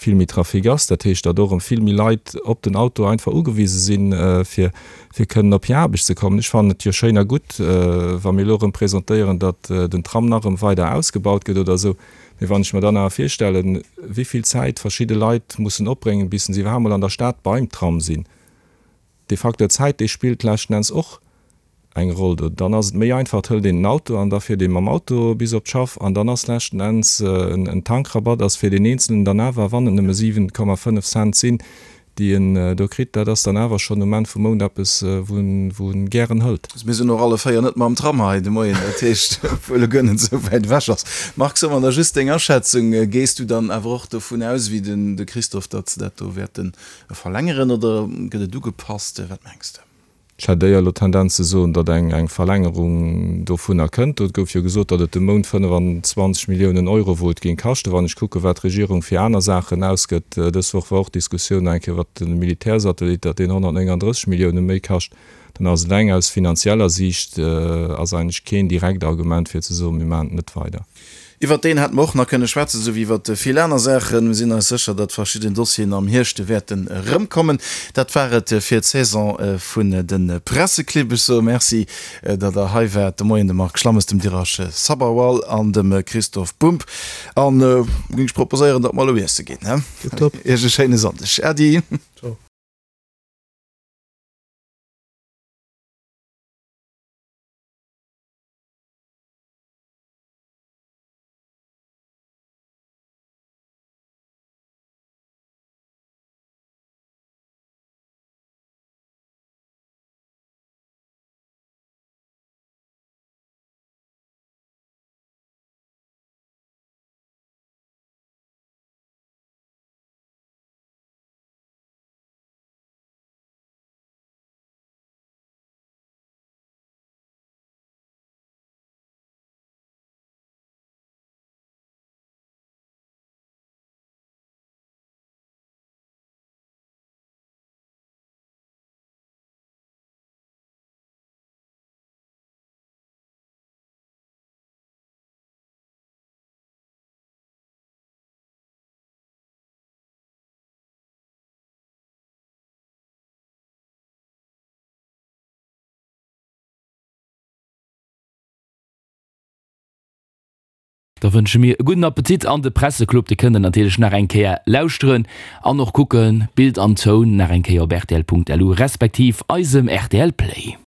S4: vill méi Trafic ass. Dat heescht, datt och erëm vill méi Leit op den Auto einfach ugewise sinn, fir, fir kënnen op hir Aarbecht ze kommen. Ech fannen et jo schéin a gutt, wa mir elo erëm presentéieren, datt den Tram nach erëm weider ausgebaut gëtt oder esou. Mee wann ech mer dann awer virstellen, wéi vill Zäit verschidde Leit mussen opbréngen, bis se iwwerhaapt mol an der Stad beim Tram sinn, dee Facteur Zäit, dee spillt leschten Enns och eng Roll do. Dann ass et méi einfach, et hëlt een den Auto an da fiert ee mam Auto bis op d'Schaff an dann ass leschten Enns en Tankrabatt ass fir deen Eenzelen dann awer, wann et nëmme 7,5 Cent sinn, déi en do kritt, dat ass dann awer schonn um Enn vum Mount eppes, wou en gären hëlt.
S3: Mir sinn och alle 4 net mam Tram hei de Moien, dat heescht, obwuel e guer net esou wäit ewech ass. Marc, so mer da just deng Aschätzung, Gees du dann awer och dovun aus, wéi den de Christophe, datt se dat do wäerte verlängeren oder gëtt et ugepasst? Wat mengs de?
S4: Ech hätt éier elo d'Tendenz ze soen, datt eng eng Verlängerung dovunner kënnt. Do gouf jo gesot, datt et de Mount 25 Milliounen Euro wollt géing kaschten. Wann ech kucken, wat d'Regierung fir aner Saachen ausgëtt, dës Woch war och d'Diskussioun nach eng Kéier iwwert de Militärsatellit, datt deen 139 Millioune méi kascht, dann ass eleng aus finanzieller Siicht ass eigentlech keen direkt Argument fir ze soen, mir maachen et net weider.
S3: Iwwert deen hätte mer och nach kënne schwätzen, esou wéi iwwert vill aner Saachen. Mir sinn eis sécher, datt verschidden Dossieren am Hierscht wäerten erëmkommen. Dat war et fir d'Saison vun de Presseclibb. Ech soe Merci, datt Der hei waart de Moien, dem Marc Schlammes, dem Dirash Sabharwal an dem Christoph Bumb. An da géing ech proposéieren, datt mer elo iesse ginn.
S5: Tiptop.
S3: Iech e schéine Sonndeg. Äddi.
S5: Ciao.
S2: Da wënsche mir e gudden Appetit an de Presseclub, dee kënnt der natierlech nach eng Kéier lauschteren an och kucken, Bild an Toun nach eng Kéier op rtl.lu respektiv eisem rtl Play.